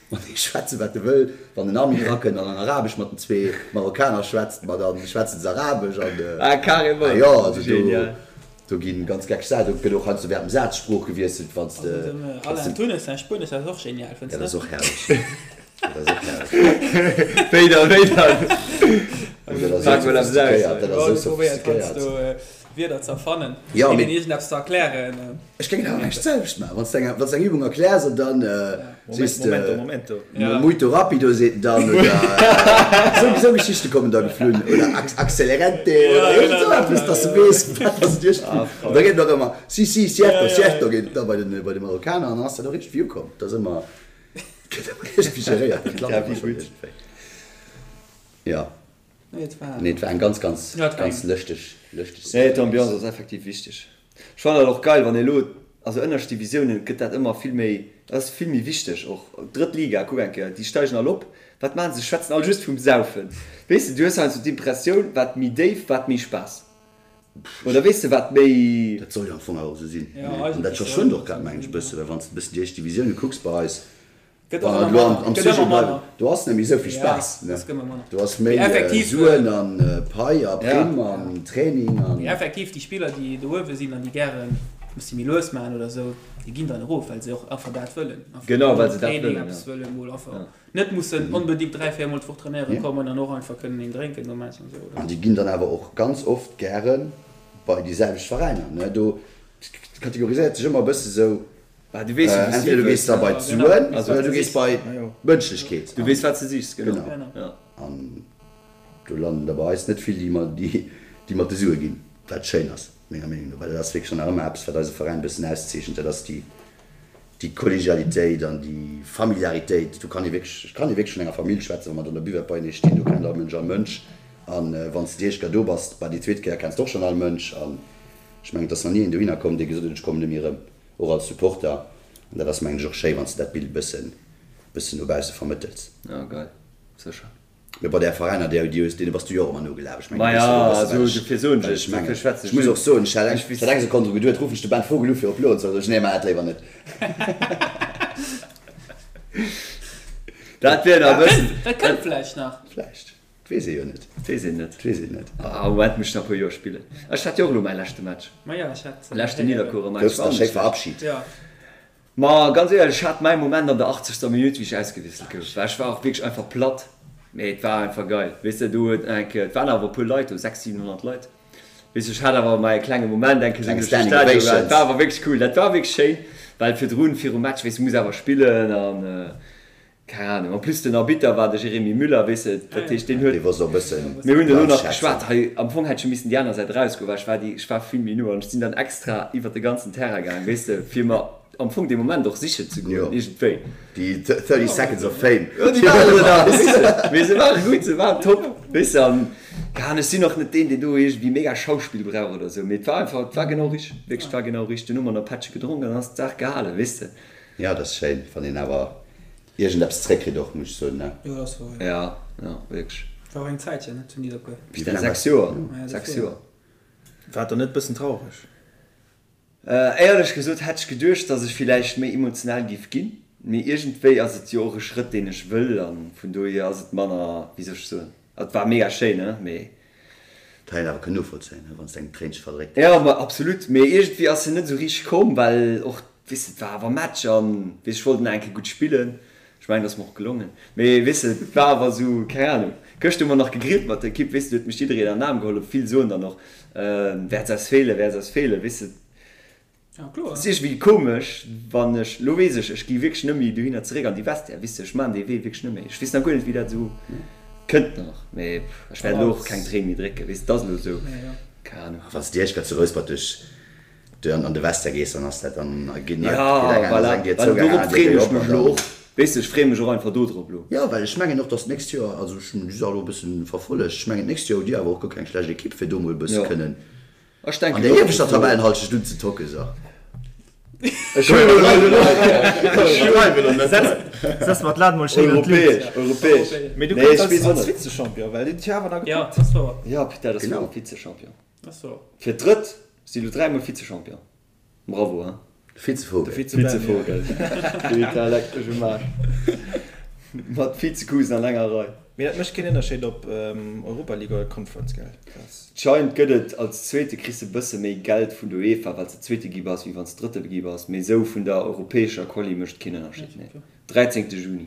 matenee schwätzen, wat e wëll. Wann den Armin erakënnt an an Arabesch mat den zwee Marokkaner schwätzt, ma da schwätzen se Arabesch an, Ah, carrément! ah jo, also do, Genial. do gi ganz geckeg Saachen, do gëtt och heiansdo während dem Saz d'Sprooch gewiesselt, wann s de, Also dem wann s Alain de, Thuness säin Spuenesch ass och genial, fënns dat net? ass och herrlech. Dat ass och herrlech. Wéi dann, wéi dann? Dat ass Pak esou mol eppes aus. sophistiquéiert, dat ass Jo, esou du probéiert sophistiquéiert. heiansdo Wierder ze erfannen, Jo, deenen mee iergendeppes ze erklären. ech géing et awer näischt d'selwecht maachen. Wann s de eng, wann s de eng Übung erkläers an dann sees de, Momento, momento. Ja. Muito rapido seet en dann oder esou, esou Geschichte kommen da geflunn oder ac, accelerente oder Ja, iergend genau, esou eppes, genau, dass de ja. weess, wat dass et iergendwéi. Ah, An da voll. geet et och ëmmer si, si, cierto, Ja, ja, cierto ja. geet et da bei de, bei de Marokkaner an dann ass dat och iergendwéi ukomm. Dat ass ëmmer, gëtt ëmmer iergendwéi geréiert, dat klappt Ja, ëmmer wéi schonn gutt. iergendwéi. Jo. Nee, et war. Nee, et war eng ganz, ganz, ganz lëschteg, lëschteg Nee, d'Ambiance ass effektiv wichteg. Ech fannen dat och geil, wann ee elo, also ënnerscht Divisiounen gëtt dat ëmmer vill méi, dat ass vill méi wichteg och. Drëtt Liga, kuck eng Kéier, déi steigen all op, wat maachen se? Schwätzen all just vum Saufen. Weess de, du hues heiansdo d'Impressioun, wat méi déif, wat méi Spaass. Oder weess de, wat méi. Dat soll jo am Fong awer och esou sinn, ne? An dat verschwënnt och grad, mengen ech, e bësse, well wann s de e bëssen déi éischt Divisioune kucks bei eis, Gëtt och ëmmer manner. Am Gëtt ëmmer Sujet bleiwen, manner. do ass net méi esou vill Ja, Spaass, ne? es gëtt ëmmer manner. Do ass Mee méi effektiv, Suen an Pai a Ja. Primm an Training an. Mee effektiv, déi Spiller, déi do uewe sinn an déi gären e bëssi méi lues maachen oder esou, déi ginn dann erof, well se och einfach dat wëllen. Einfach Genau, mol well se dat Training, wëllen, eppes ja. wëllen, mol einfach Ja. net mussen onbedéngt 3, 4 mol d'Woch trainéiere kommen an och einfach kënnen een drénken nom Match an esou, oder? An déi ginn dann awer och ganz oft gäre bei déi selwecht Veräiner, ne? Do kategoriséiert sech ëmmer e bësse sou, Bah, du weess jo, wou s du Entweder du gees da bei d'Suen oder du gees bei d'Mënschlechkeet. Du weess, wat s de sichs, genau. Genau. An do landen der bei eis net vill, déi mat de Sue ginn, wat schéin ass, menger Meenung no, well dat ass wierklech dann nach ëmmer eppes, wat eise Veräin e bëssen auszeechent, dat ass déi Kollegialitéit an déi Familiaritéit. Do kann ee wierklech, et kann ee wierklech vun enger Famill schwätzen, wa mer an der Buvette beienee stinn, do kennt all Mënsch all Mënsch. An wann s de déi éischt Kéier do bass, bah, déi zweet Kéier kenns de och schonn all Mënsch. An ech mengen, et ass nach ni een dohinner komm, dee gesot huet, ech kommen net méi erëm. Och als Supporter, an dat ass mengen ech och schéi wanns de dat Bild bëssen bëssen no bausse vermëttels. Ja geil, sécher. Mee bei där Veräiner déi déi hues, deene bass du jo och ëmmer nogelaf, ech mengen Ma du weess ja, jo e bësse also wat ech dofir soen wat ech, ech mengen. dofir schwätzen Ech ech muss just. och soen, ech hat eng Ech ech hat eng Sekonn dru geduet, ruffen ech de Ben Vogel u fir op Loen ze, sot ech nee, maach dat léiwer net. Dat wier nach e bëssen. Dat kënnt vläicht nach. Vläicht. 't weess ee jo net. 't weess een net. 't weess een net. Ah, am Moment muss ech nach e puer Joer spillen. Ech hat jo och elo mäi leschte Match. Ma jo, ech hat. Leschten Nidderkuerer Match. Goufs da schéi verabschit? Jo. Ma ganz éierlech, ech hat mäi Moment an der 80. Minutt, wéi ech ausgewiesselt gouf, well ech war och wierklech einfach platt. Mee et war einfach geil, weess de. Do huet nach eng Kéier, et waren awer e puer Leit do, 600, 700 Leit. Weess de, ech hat awer mäi klenge Moment eng Kéier sou Klenge duerch de Standing Stadion. Ovations. Et war awer wierklech cool. Dat war wierklech schéin, well virdrun, virum Match, weess de, muss awer spillen an. Keng Ahnung. En plus den Arbitter war de Jérémy Müller, weess de, dat heescht deen huet. Dee wosst och e bëssen Mir hunn elo nach anschätzen. geschwat, hei am Fong hätt ech jo missen déi aner Säit erausgoen, well ech war déi, ech war vill méi no an ech sinn dann extra iwwer de ganzen Terrain gaang, weess de, fir mer am Fong dee Moment och sichen ze goen, Jo, iergendwéi. déi 30 seconds of fame. Jo, déi waren do nach, weess de. Mee se ware gutt, se waren top, weess de, an keng Ahnung, ech sinn och net deen, deen do iergendwéi mega Schauspill brauch oder esou, mee et war einfach, et war genau richteg, wierklech, et war genau richteg. Dunn hu mer nach e Pättche gedronk an dann ass d'Saach gehalen, weess de. Jo, dat ass schéin, wann een awer iergendeppes zréckkritt och, muss ech soen, ne? Jo, dat ass wouer, jo. Ja, ja, wierklech. War och eng Zäitchen, ne, zu Nidderkuer. Wéi laang 6 Joer, 6 Joer. War et dann net bëssen traureg? Éierlech gesot hätt ech geduecht, dass ech villäicht méi emotional giff ginn, mee iergendwéi ass et jo och e Schrëtt, deen ech wëll an vun dohier ass et manner, wéi soll ech soen, et war mega schéin, ne, mee. Dat hätt een awer kënnen novollzéien, ne, wann s de eng Tréinche verdréckt Jo, häss. ma absolut, mee iergendwéi ass se net esou richteg komm, well och, weess de, et war awer Match an, weess, ech wollt nach eng Kéier gutt spillen. Ech mengen, et ass mer och gelongen, mee weess de, et war awer esou, keng Ahnung. Gëschter hu mer nach gegrillt mat der Ekipp, weess de, do huet mech jiddereen an den Aarm geholl, vill soen dann och, Wäert se eis feelen, wäert se eis feelen, weess de. Et ass iergendwéi komesch, wann ech, lo weess ech, ech gi wierklech net méi dohinner zeréck an déi Vestiaire, weess de, ech maachen dee Wee wierklech net méi. Ech weess nach guer net, wéi dat esou kënnt nach, mee ech wäert elo och keng Tréin méi drécken, weess de, et ass elo esou, keng Ahnung. Wann s de éischt grad zu Rouspert duerch an de Vestiaire gees, dann ass dat, dann geet eng Ja, aner voilà, eng Dier well zou, eng dorop aner Dier freeën geet ech op mech an elo dann. och, weess de, ech freeë mech och einfach do drop elo. Jo, well ech mengen och, datt d'nächst Joer, also ech hunn déi Saach elo e bëssen verfollegt, ech mengen d'nächst Joer hutt Dir awer och guer keng schlecht Ekipp, fir do mol e bësse Jo. kënnen Ech denken An der och, ieweschter Tabellenhalschent unzetocken, so. Ech huelen elo net. Setz mer d'Lat mol schéin an d'Luucht. Europäesch, europäesch. Mee du Nee, kënns ech weess als och net. Vize-Champion, well deen huet jo awer nach Ja, gepackt. dat ass wouer. Ja, putain, dat ass Genau. wouer, Vize-Champion. Dat ass wouer. Fir d'drëtt si lo dräimol Vize-Champion. Bravo, hein. Vizevogel. De Vize-Ben, ja. Vizevogel. Putain, leck mech um Aarsch. Mat Vizekusen an enger Rei. Mee dat mécht keen Ënnerscheed op Europa League oder Conference, gell? Scheint gëtt et, als Zweete kriss de bësse méi Geld vun der UEFA well s de Zweete gi bass, wéi wann s de Drëtte gi bass, mee esou vun der europäescher Quali mécht et keen Ënnerscheed, nee. 13. Juni,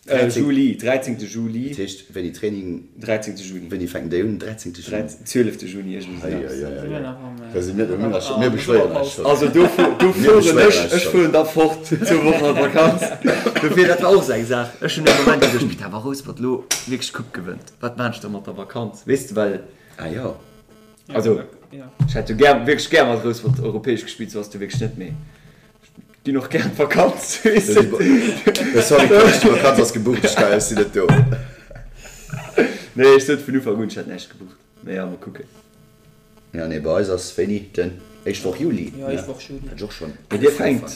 äh Juli, 13. Juli. Dat heescht wéini Training? 13. Juni. Wéini fänken déi un? 13. Juni? 12. Juni, iergendwéi esou eppes. Da si mir, mir beschwéieren eis schonn. Also do fueren ech, ech fueren da fort zwou Wochen an d'Vakanz. Dofir, dat war och esou eng Saach, ech hunn ee Moment geduecht, putain, wa Rouspert elo wierklech d'Coupe gewënnt. Wat maan ech da mat der Vakanz, weess de, well. Ah jo. Also, ech hätt jo gär, wierklech gär mat Rouspert europäesch gespillt, sou ass et jo wierklech net, mee ech ginn och gär an d'Vakanz, weess de. Sorry, Coach, d'Vakanz ass gebucht, ech kann, ech sinn net do. Nee, ech sot vun Ufank un, ech hätt näischt gebucht. Mee ja, mol kucken. Ja, nee, bei eis ass wéini? Den éischt Woch Juli, Ja, éischt Woch Juli. Wat ech och schonn Mee dir fänkt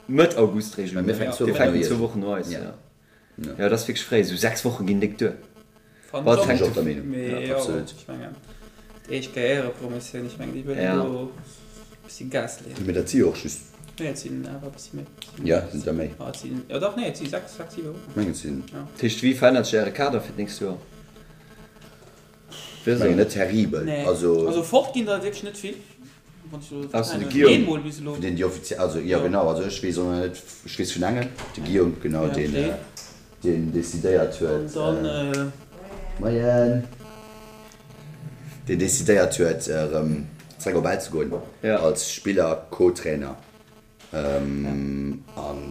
Mëtt August réischt un, Mir fänken zwou Dir Wochen no fänken zwou Wochen no eis, Ja. ja. Ja, dat ass wierklech fréi. Esou 6 Woche ginn déck duer. Fannen Wat ech och. hänkt Ech och der Meenung. Mee jo, Absolut. ech mengen, d'éischt Kéier Éierepromotioun, ech mengen, déi wëllen Ja. do e bëssi Gas leeën. Mee dat si jo och just. Nee, et sinn awer e bëssi méi. Ja, sinn der méi? Ah, et sinn, jo dach, nee, et si 6, 6, 7 Wochen. Ech mengen, et sinn. Ja. Dat heescht, wéi verännert sech Äre Kader fir d'nächst Joer? Ech mengen net terribel. Nee, Also. also fort ginn der wierklech net vill. Wann ech elo Ausser de kennen, Guillaume. eemol bis elo. Vun deenen, déi offiziell, also jo genau, also ech weess och nach net, ech weess vun engem, de Guillaume, genau, Ja, deen, deen. deen decidéiert huet, An dann. Moien! Deen decidéiert huet, erëm zréck op Ell ze goen Ja. als Spiller, Co-Trainer. An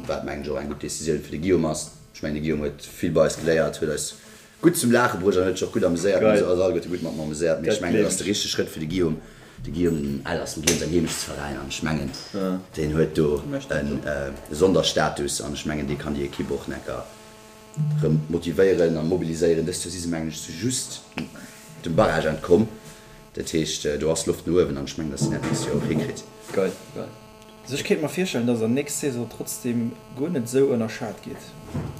wat mengen ech och eng gutt Decisioun fir de Guillaume ass. Ech mengen de Guillaume huet vill bei eis geléiert, huet eis gutt zum Laache bruecht an huet sech och gutt ameséiert. Mir hu eis alleguerte gutt mat em ameséiert, mee ech mengen dat ass de richtege Schrëtt fir de Guillaume. De Guillaume, den Ell ass dem Guillaume säin Heemechtsveräin an ech mengen deen huet do e Sonderstatus an ech mengen dee kann déi Ekipp och necker rëm motivéieren a mobiliséieren. Dëst Joer si se mengen ech just dem Barrage entkomm, dat heescht do ass Loft no uewen an ech mengen datt si dat nächst Joer och hikritt. Geil, geil. Also ech kéint mer virstellen, dass der nächst Saison trotzdem guer net esou ënnerschat gitt,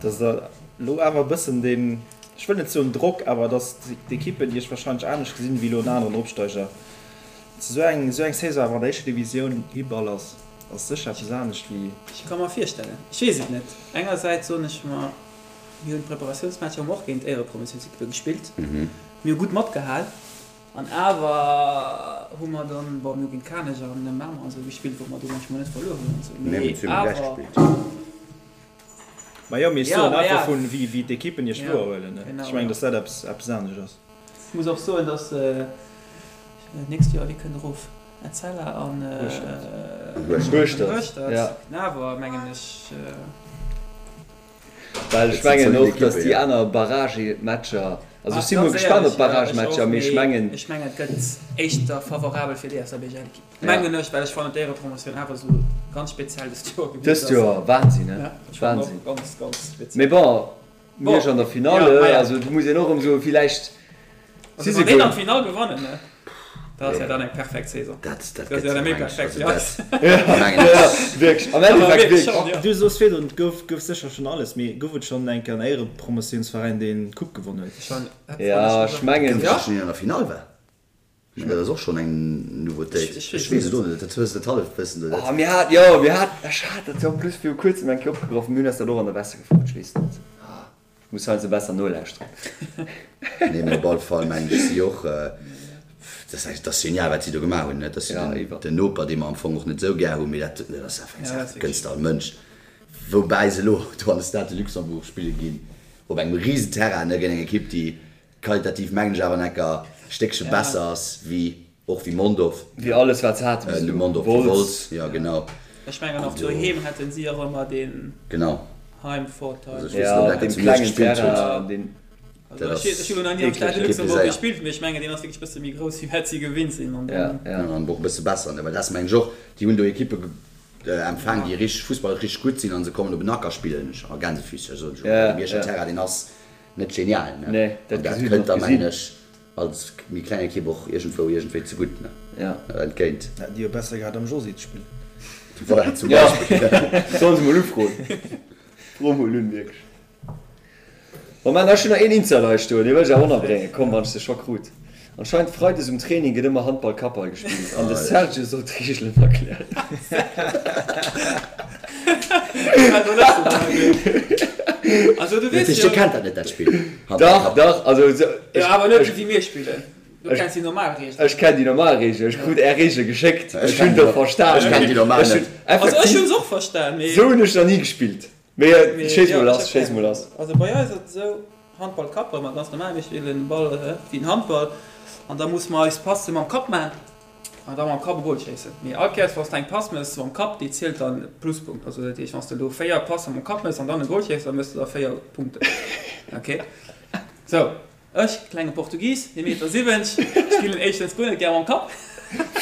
dass der elo awer e bëssen deen, ech wëll net soen Drock, awer dass d'Ekippen iech wahrscheinlech anescht gesinn wéi elo en aneren Opsteiger. Esou eng esou eng Saison awer an der éischter Divisioun Hiball ass ass sécher eppes anescht wéi. Ech ka mer virstellen, ech weess et net. Engersäits soen ech mer, mir hunn d'Preparatiounsmatcher hu mer och géint Éierepromotiounsekippe gespillt, mir hu gutt matgehal. An awer hu mer dann, bon, mir hu géint Kanech an Mamer an esou gespillt, wou mer do munchmol net verluer hunn an esou, mee awer. Majo, mee ech Ja, soen ma einfach ja. vun wéi wéi d'Ekippen iech Ja, wouerhuelen, ne? genau, Ech mengen, ja. dass dat eppes eppes anescht ass. Ech muss och soen, dass nächst Joer, wie kënnt erof? Etzella an Hueschtert. Hueschtert, ja. Awer mengen ech. Well ech mengen och, datt déi aner Barragematcher, also ech si mol gespaant op d'Barragematcher, mee ech mengen. Ech mengen et gëtt éischter favorabel fir déi SABGL-Ekipp, mengen ech, well ech fannen d'Éierepromotioun awer esou ganz speziell dëst Joer gewiescht ass. Dëst Joer, Wahnsinn, he? Wahnsinn. Ganz, ganz speziell. Mee bon, Miersch an der Finale, also do muss een och erëm soen, villäicht si se guer. An d'Finall gewannen, ne? Dat ass ja dann eng perfekt Saison. Dat, dat gëtt jo méi perfekt, ja. Wierklech, am Endeffekt wierklech. Du soos virdrun, et gouf, gouf sécher schonn alles, mee gouf et schonn eng Kéier en Éierepromotiounsveräin, deen d'Coupe gewonnen huet? Ja, ech mengen. Gouf et schonn een an der Finall war? Ech mengen, dat ass och schonn eng Nouveautéit. Ech weess et och net, dat hues de dat halleft Wëssen do net. Oh, mir hat, jo, mir hat, ech hat dat jo en plus viru kuerzem eng Kéier opgegraff, mir hunn eis dat och an der Wesse gefrot, ech weess net. Muss heiansdo besser nolauschteren. Nee, mee op alle Fall mengen ech si och, dat ass dat ass genial wat si do gemaach hunn, net? Dat ass jo den, den Noper dee mer am Fong och net esou gär hunn, mee dat, dat ass einfach eng Saach, dat gënns de all Mënsch. Woubäi se elo do an de Stade de Luxembourg spille ginn, op engem risen Terrain, ne, géint eng Ekipp déi qualitativ mengen ech awer enker Stéckche besser ass wéi Och wéi Mondorf. Wéi alles wat se hate bis elo. Mondorf, wéi Wolz, jo genau. Ech mengen och doheem hätten si och ëmmer deen Heimvorteil. Also ech weess net ob dat zu Miersch gespillt huet. Also ech hu lo nach ni am Stade de Luxembourg gespillt, mee ech mengen deen ass wierklech bësse méi grouss wéi wat si gewinnt sinn. An dann. Jo an och e bësse besser, ne, well dat ass mengen ech och, déi hunn do Ekippe empfaang déi richteg fussballesch richteg gutt sinn an se kommen op en Acker spillen a Gänsefüßchen, soen ech elo, well de Mierscher Terrain deen ass net genial, ne, an dat kënnt da mengen ech Als méi kleng Ekipp och iergendwou iergendwéi ze gutt, ne? Ja. Entgéint. Hätten déi jo besser gehat am Josy ze spillen. Voilà, zum Beispill. Sollen se mol ufroen. Fro mol un, wierklech. Bon, mä ech hunn nach een Insider hei stoen, dee wëll ech awer ënnerbréngen. Komm, wann ech se scho krut. Anscheinend Freides um Training gëtt ëmmer Handball-Kappball gespillt an de Serge soll d'Reegelen erklären. Also du weess jo. Dir kennt dat net, dat Spill? Dach, dach, also ech. Jo, awer net esou wéi mir spillen. Du kenns déi normal Reegelen. Ech kenn déi normal Reegelen. Ech krut är Reegele geschéckt. Ech hunn der verstan. Ech kenn déi normal net. Also ech hunn se och verstan, mee. Esou hunn ech nach ni gespillt. Mee schéiss mol lass, schéiss mol lass. Also bei eis ass et esou, Handball Kapp, wa mer ganz normal, mir spillen Ball wéi den Handball an da musse mer eis Passe mam Kapp maachen. An da mam Kapp e Goal schéissen. Mee all Kéiers wann s de eng Pass mëss mam Kapp, déi zielt dann Pluspunkt. Also dat heescht wann s de elo 4 Passe mam Kapp mëss an dann e Goal schéiss, da mëss de der 4 Punkten. Ok. Sou, ech, klenge Portugis, ee Meter 70, spillen éischtens guer net gär mam Kapp.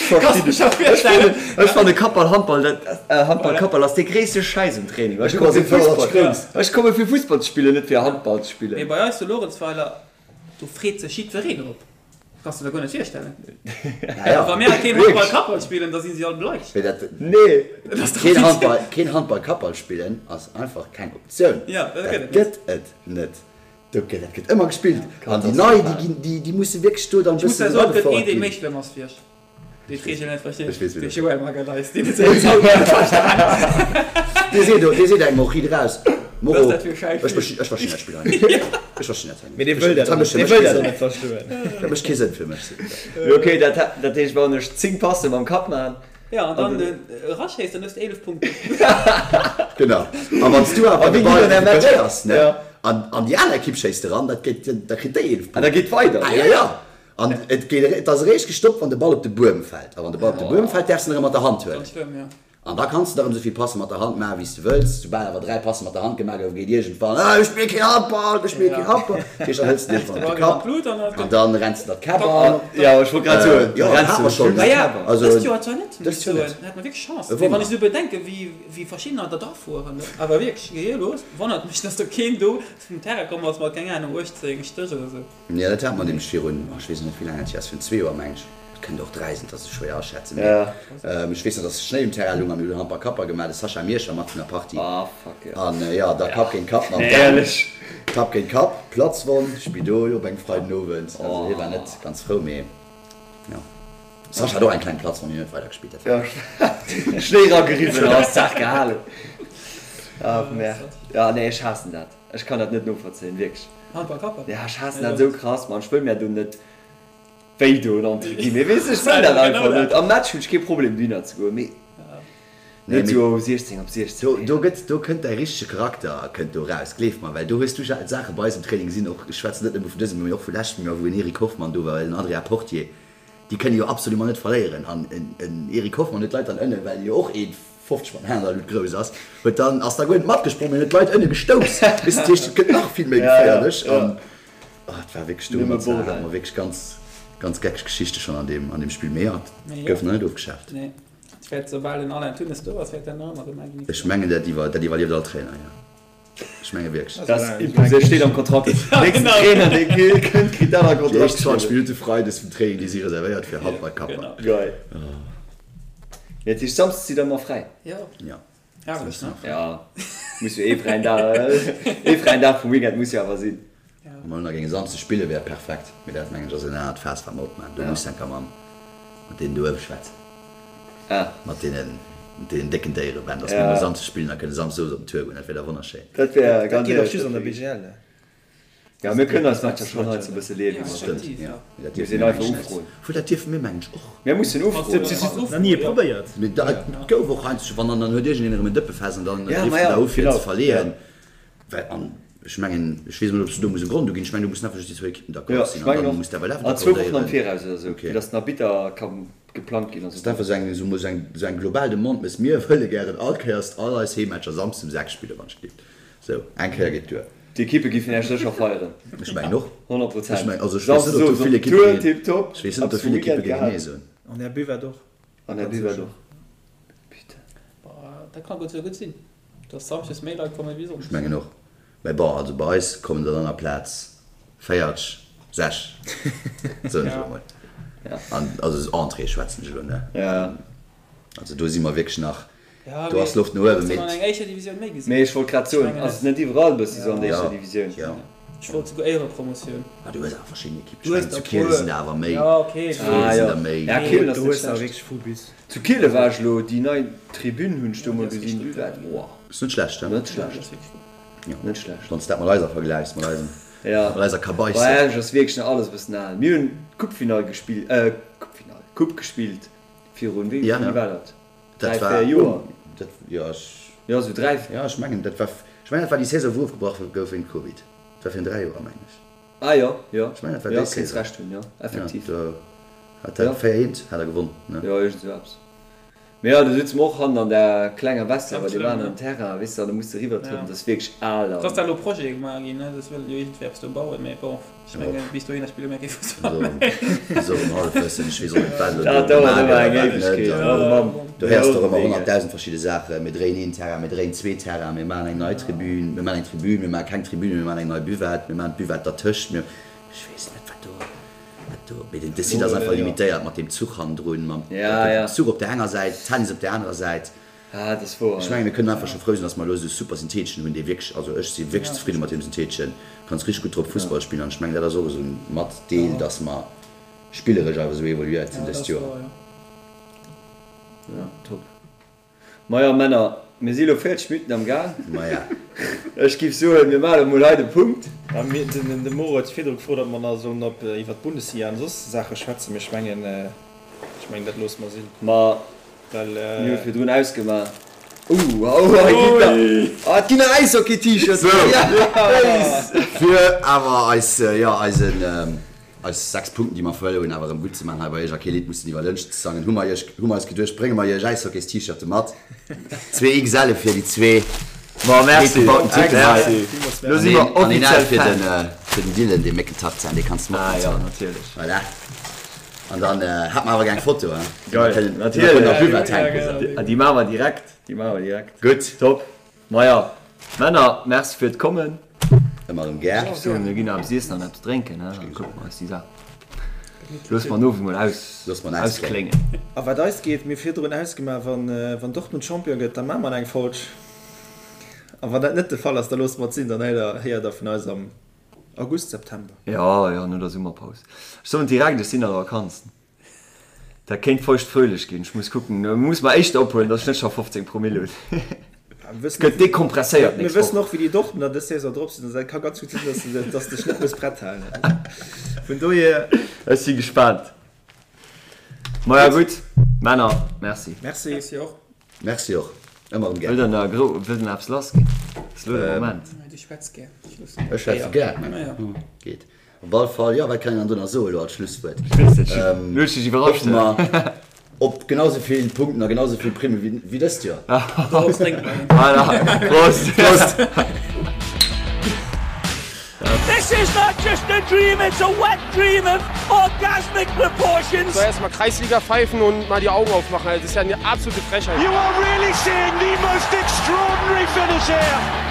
Kanns dech scho virstellen. Ech fanne Kappball, Handball, dat, Handball, Kappball ass dee gréisste Schäiss um Training. Ech komme fir Fussball, ech komme fir Fussball ze spillen, net fir Handball ze spillen. Mee bei eis zu Luerenzweiler. Do freet sech jiddwereen drop. Kanns de der guer net virstellen. Ja, ja. Wa mir keen Handball Kappball spillen, da si si all bleich. Mee dat, Nee. Dat ass dach keen wéi. Handball, keen Handball Kappball spillen ass einfach keng Optioun. Ja, dat Dat gëtt et net. gëtt et net. Do gëtt, dat gëtt ëmmer gespillt. An déi nei, déi ginn, déi, déi musse wierklech do dann e Ech muss bëssen der soen, et gëtt ee, eragefouert dee ginn. méi schlëmm ass wéi ech. Dee d'Reegel net versteet. Ech weess, wien De dat ass. Joël Magalhaes, deen huet se bis haut net verstanen. Dee seet, dee seet engem och riit eraus, Was Moro, dat fir Schäiss ech verstinn, ech verstinn dat Spill hei net. Ech verstinn dat hei net. Mee dee wëll dat och net, dee wëll dat och net verstoen. Dat mécht kee Sënn fir mech, seet en. Mee okay, dat, dat heescht, wann ech 10 Passe mam Kapp man. Ja, an dann eraschéisst, dann hues de 11 Punkten. Genau. A wann s du awer A de wéi Ball ginn dann är Matcher? recuperéiers, ne, Ja. an, an déi aner Ekipp schéisst eran, dat gétt, da kritt déi 11 Ah, da Punkten. geet weider. Ah, ja, ja. An et geet, et ass eréischt gestoppt, wann de Ball op de Buedem fält. A wann de Ball op de Buedem fält, däerfs de en erëm mat der Hand huelen. Ganz schlëmm, jo. An da kanns de der erëm esou vill Passe mat der Hand maachen, wéi s de wëlls. Soubal awer 3 Passe mat der Hand gemaach goufen, geet iergendwann, Ah, ech spille keen Handball, ech spille keen Handball. Dat heescht, dann hëls de iergendwann op de Kapp an dann renns de der d'Käpp an. Jo, ech wollt grad soen, Jo, da dat renns hat de mer schonn. de Maja, Käpp an. Also, dëst Joer zwar net, muss dëst ech Joer soen. net. Da hat mer wierklech Chance. E Mee wann Wonner. ech esou bedenken, wéi, wéi verschiddener der drafueren, ne? Awer wierklech, gehirlos, wonnert mech, dass do keen do vum Terrain komm ass mat, keng Ahnung, 18 Stéch oder sou. Jo, dat hat mer nämlech virun, oh, ech weess net, wéi laang dat hier ass, virun zwee Joer, meng ech. Et kënnt och dräi sinn, dat ass esou schwéier aschätzen, mee ech weess nach, dass Schnéi um Terrain lung a mir hunn Handball Kapper gemaach, de Sascha Miersch war mat vun der Partie. An jo, da Kapp géint Kapp mam Dan, Kapp géint Kapp, Platzwonn, Spidol op engem Freidenowend. Also hie war net ganz frou, mee jo. Sascha hat och eng kleng Platzwonn, hien huet weidergespillt, dat war. Schnéi erageriwwen an ass d'Saach gehalen. Ach merde. Jo, nee, ech haassen dat. Ech kann dat net novollzéien, wierklech. Handball Kapper? Ja, ech haassen dat esou krass, Mann. Ech wëll mär do net wéi doen entre guillemets, weess de, ech wëll dat einfach net. Am Match hunn ech kee Problem dohinner ze goen, mee net esou 16 op 16. Do, do gëtt, do kënnt däi richtege Charakter kënnt do raus, gleef mer, well do hues du Saache bei eis am Training gesinn, och, ech schwätzen net nëmme vun dësem, mee och vu leschtem Joer, wou en Eric Hoffmann do war, en Adrien Portier, déi kënne jo absolument net verléieren an en Eric Hoffmann huet d'Leit dann ënnen, well jo och ee 50 mat Händler Luut grouss ass, huet dann, ass da guer net matgesprong, mee huet d'Leit ënne gestouss, weess de, dat heescht, et gëtt nach vill méi geféierlech an oh, et war wierklech do mat Sarah hate mer wierklech ganz, ganz geckeg Geschichte schonn an deem, an deem Spill, mee jo, et gouf nach net ofgeschaaft. Nee, et wäert soubal den Alain Thunnes do ass, wäert dat nach ëmmer gemaach ginn. Ech mengen dat iwwer, dat iwwerlieft all Trainer, jo, ech menge wierklech. Dat ass imposé, steet am Kontrakt, nächsten Trainer dee kënnt, kritt dat am Déi Kontrakt éischt 20 geschriwwen. Minutte Freides vum Training, déi si reservéiert fir Handballkapper. Geil. Mee dat heescht Samsdes sidd der ëmmer fräi? Jo. Jo. Herrlech, ne? Ja, muss jo ee fräien Dag, ee fräien Dag vum Weekend muss jo awer sinn. Wa mer elo nach géinge Samsdes spillen, wär perfekt. Mee dat mengen ech ass en anert Faass wat mer opmaachen. Do muss enker mam mat deenen do uewe schwätzen. Ah. Mat deenen, mat deenen décken Déiere, Ben, dass mir emol Samsdes spillen a kënne Samsdes owes op den Tour goen. Dat wär da wonnerschéin. Dat wär Dat ganz geet och éierlech just an der dat wär BGL. Ja, mir kënnen eis Matcher schonn hei ze bësse leeë wéi mer Stëmmt, wëllen. jo. Mee dat Mir dierfe sinn mir einfach mengen ech net. ufroen. Obwuel, dat dierfe mir mengen ech och. Mir mussen ufroen. Nach ni probéiert. Mee da, et gouf och heiansdo, wann dann, dann huet iergendeen erëm en Dëppefest an dann Ja, rifft ma en ja, da u fir genau. ze verleeën. Well, an ech mengen, ech weess net, ob s du do muss e Grond uginn. Ech mengen, do mussen einfach just déi zwou Ekippen Ja, d'accord sinn ech an mengen dann och. muss d'awer An zwou Wochen am accordéieren. Viraus oder esou, Okay. fir datt den Arbitter ka geplangt ginn a Ass sou. einfach esou eng, esou mol esou eng, esou eng global Demande, Mes mir wëlle gären all Kéiers all eis Heemmatcher Samsdes um 6 spillen, wann ech gleeft. Sou, eng Kéier geet duer. D'Ekippe giffen Iech sécher feieren. Ech mengen och. 100 Prozent. Ech mengen, also ech weess net, ob do vill Ekippe géint, ech weess net, ob do vill Ekippe géinge nee soen. An Är Buvette och. An Är Buvette och. Putain. Dat kann gutt sou gutt sinn, dass samschdes méi Leit kommen wéi sonndes. Ech mengen och. Mä bon, also bei eis kommen der dann aplaz 40, 6, soen ech elo mol. An also Entrée schwätzen ech elo, ne? Also do si mer wierklech nach Do ass Loft no uewen, mee. Mee ech wollt grad soen, ass et net iwwerall e bësse sou an der éischter Divisioun? Jo. Ech wollt souguer Éierepromotioun. Ah, du hues awer verschidden Ekippen. Ech mengen, zu Kiele sinn der awer méi. Zu Kiele sinn der méi. Ja, Kielen ass net schlecht. Zu Kiele war ech elo, déi nei Tribün hunn ech do mol gesinn, Buvette, wow. Ass net schlecht, he? Net schlecht. Net schlecht. Wann s dat mat eiser vergläichs, mat eisem, mat eiser Kabaisse. Bei Esch ass wierklech nach alles e bëssen al. Mir hunn d'Coupefinall gespillt, Coupefinall, Coupe gespillt virun, wéi war dat? Dat 3, war 4 Joer. Dat, jo, ech. Jo, sou 3. Jo, ech mengen, dat war, ech mengen, dat war déi Saison, wou ofgebrach gouf wéint Covid. Dat war virun 3 Joer, mengen ech. Ah jo, jo. Ech mengen, dat war Jo, déi kéints Saison. Recht hunn, jo, effektiv. Jo, do hat dat 4, 1 hat er gewonn, ne? Jo, iergend sou eppes. Mee jo, do sutze mer och hannen an där klenger Vestiaire, well déi waren am Terrain, weess de, an da muss de eriwwertrëppelen. Dat ass wierklech al Et ass da an. elo Projete gemaach ginn, ne? Dass wëllen jo iergendwéi eppes do bauen, mee bon. Ech mengen, bis dohinner spille mir kee Fussball méi. Esou um Hallefwëssen, ech weess och net, wat elo Dat do dauert gemaach ëmmer gëtt a eng wat net. Éiwegkeet. An Oh Mann, do héiers de och ëmmer mega. 100.000 verschidde Saachen. Mir dréien een Terrain, mir dréien zwee Terrainen, mir maachen eng nei Tribün, mir maachen eng Tribün, mir maache keng Tribün, mir maachen eng nei Buvette, mir maachen d'Buvette dertëscht, mir. Ech weess net, wat do, wat do, mee den, de Site ass einfach limitéiert mat deem Zuch hannendrun, mam Zuch op där enger Säit, Tennis op där anerer Säit. Ah, dat ass wouer, Ech mengen, mir kënnen einfach scho frou sinn, dass mer elo esou e super Syntheteschen hunn, dee wierklech, also ech si wierklech zefridde mat deem Syntheteschen, kanns richteg gutt drop Fussball spillen an ech mengen, dat ass och esou e Matdeel, dass mer spilleresch awer esou evoluéiert sinn dëst Joer. Ja, top. Maja Männer, mir si lo 40 Minutten am Gaang. Maja. Ech giff soen, mir maachen emol hei de Punkt. Ja, mir, den, de Moro huet virdru gefrot, ob mer nach sollen op, iwwer d'Bundesliga an soss Saache schwätzen, mee ech mengen, ech mengen, dat loosse mer sinn. Ma Well, mir hu virdrun ausgemaach. Ouh, oh, hei ginn nach, ah, et ginn nach Äishockey-T-Shirts. Sou, fir awer eis, jo, eisen, Eis 6 Punkten, déi mer verluer hunn, awer erëm gutt ze maachen hei bei iech a kee Lidd mussen iwwer Lënscht ze sangen, hu mer iech, hu mer eis geduecht, brénge mer iech Äishockey's-T-Shirte mat. Zwee XL fir déi zwee Ma merci, breet gebauten Typen hei. merci. Lo si mer An een offiziell L fir Fan. den, fir den Dylan, dee Méckentarzan, dee kanns de mat Ah jo, mathuelen. natierlech. Voilà. An dann hat mer awer gär eng Foto, hein, déi mer Geil, kënnen, déi mer kënnen natierlech. op Buvette hänken, sou. Déi maache mer direkt, déi maache mer direkt. Gutt. Top. Maja, Männer, merci fir d'Kommen. Ëmmer erëm gär. Ech soen, mir ginn eppes iessen an eppes drénken, he, dann kucke mer eis déi Saach. Loosse mer den Owend mol auskléngen. A wat eis geet, mir virdrun ausgemaach, wann Dortmund Champion gëtt, da maache mer eng Folg. A wann dat net de Fall ass, da loosse mer et sinn, dann héiert der vun eis am August, September. Jo, jo, no der Summerpaus. Ech soen direkt, ech sinn an der Vakanz. Dat kéint feucht fröhlech ginn. Ech muss kucken, muss mer éischter ophuelen, dass ech net scho 15 Promille hunn. Gëtt dekompresséiert Mir nächst wëssen Woch. och wéi déi Dortmunder dës Saison drop sinn, also dat ka ganz gutt sinn, dass de dass de dech net muss prett halen. Vun dohier. Ech si gespaant. Maja gutt, Männer, merci. Merci. Merci och. Merci och. Ëmmer erëm gär. Wëllt der nach gro, wëllt der nach eppes lass ginn? Ass elo de Moment. Du schwätz gär. Ech schwätze gär. Geet. Op all Fall, jo, wat kann een dann do nach soen elo als Schlusswuert? Ech weess net, elo hues du dech iwwerrascht. Hoffe mer op genau sou vill Punkten a genau sou vill Primme wéi dëst Joer. Dorop drénke mer een. Voilà, Prost! Prost! This is not just a dream, it's a wet dream of orgasmic proportions. So erstmal Kreisliga pfeifen und mal die Augen aufmachen. Das ist ja eine absolute Frechheit. You are really seeing the most extraordinary finish here.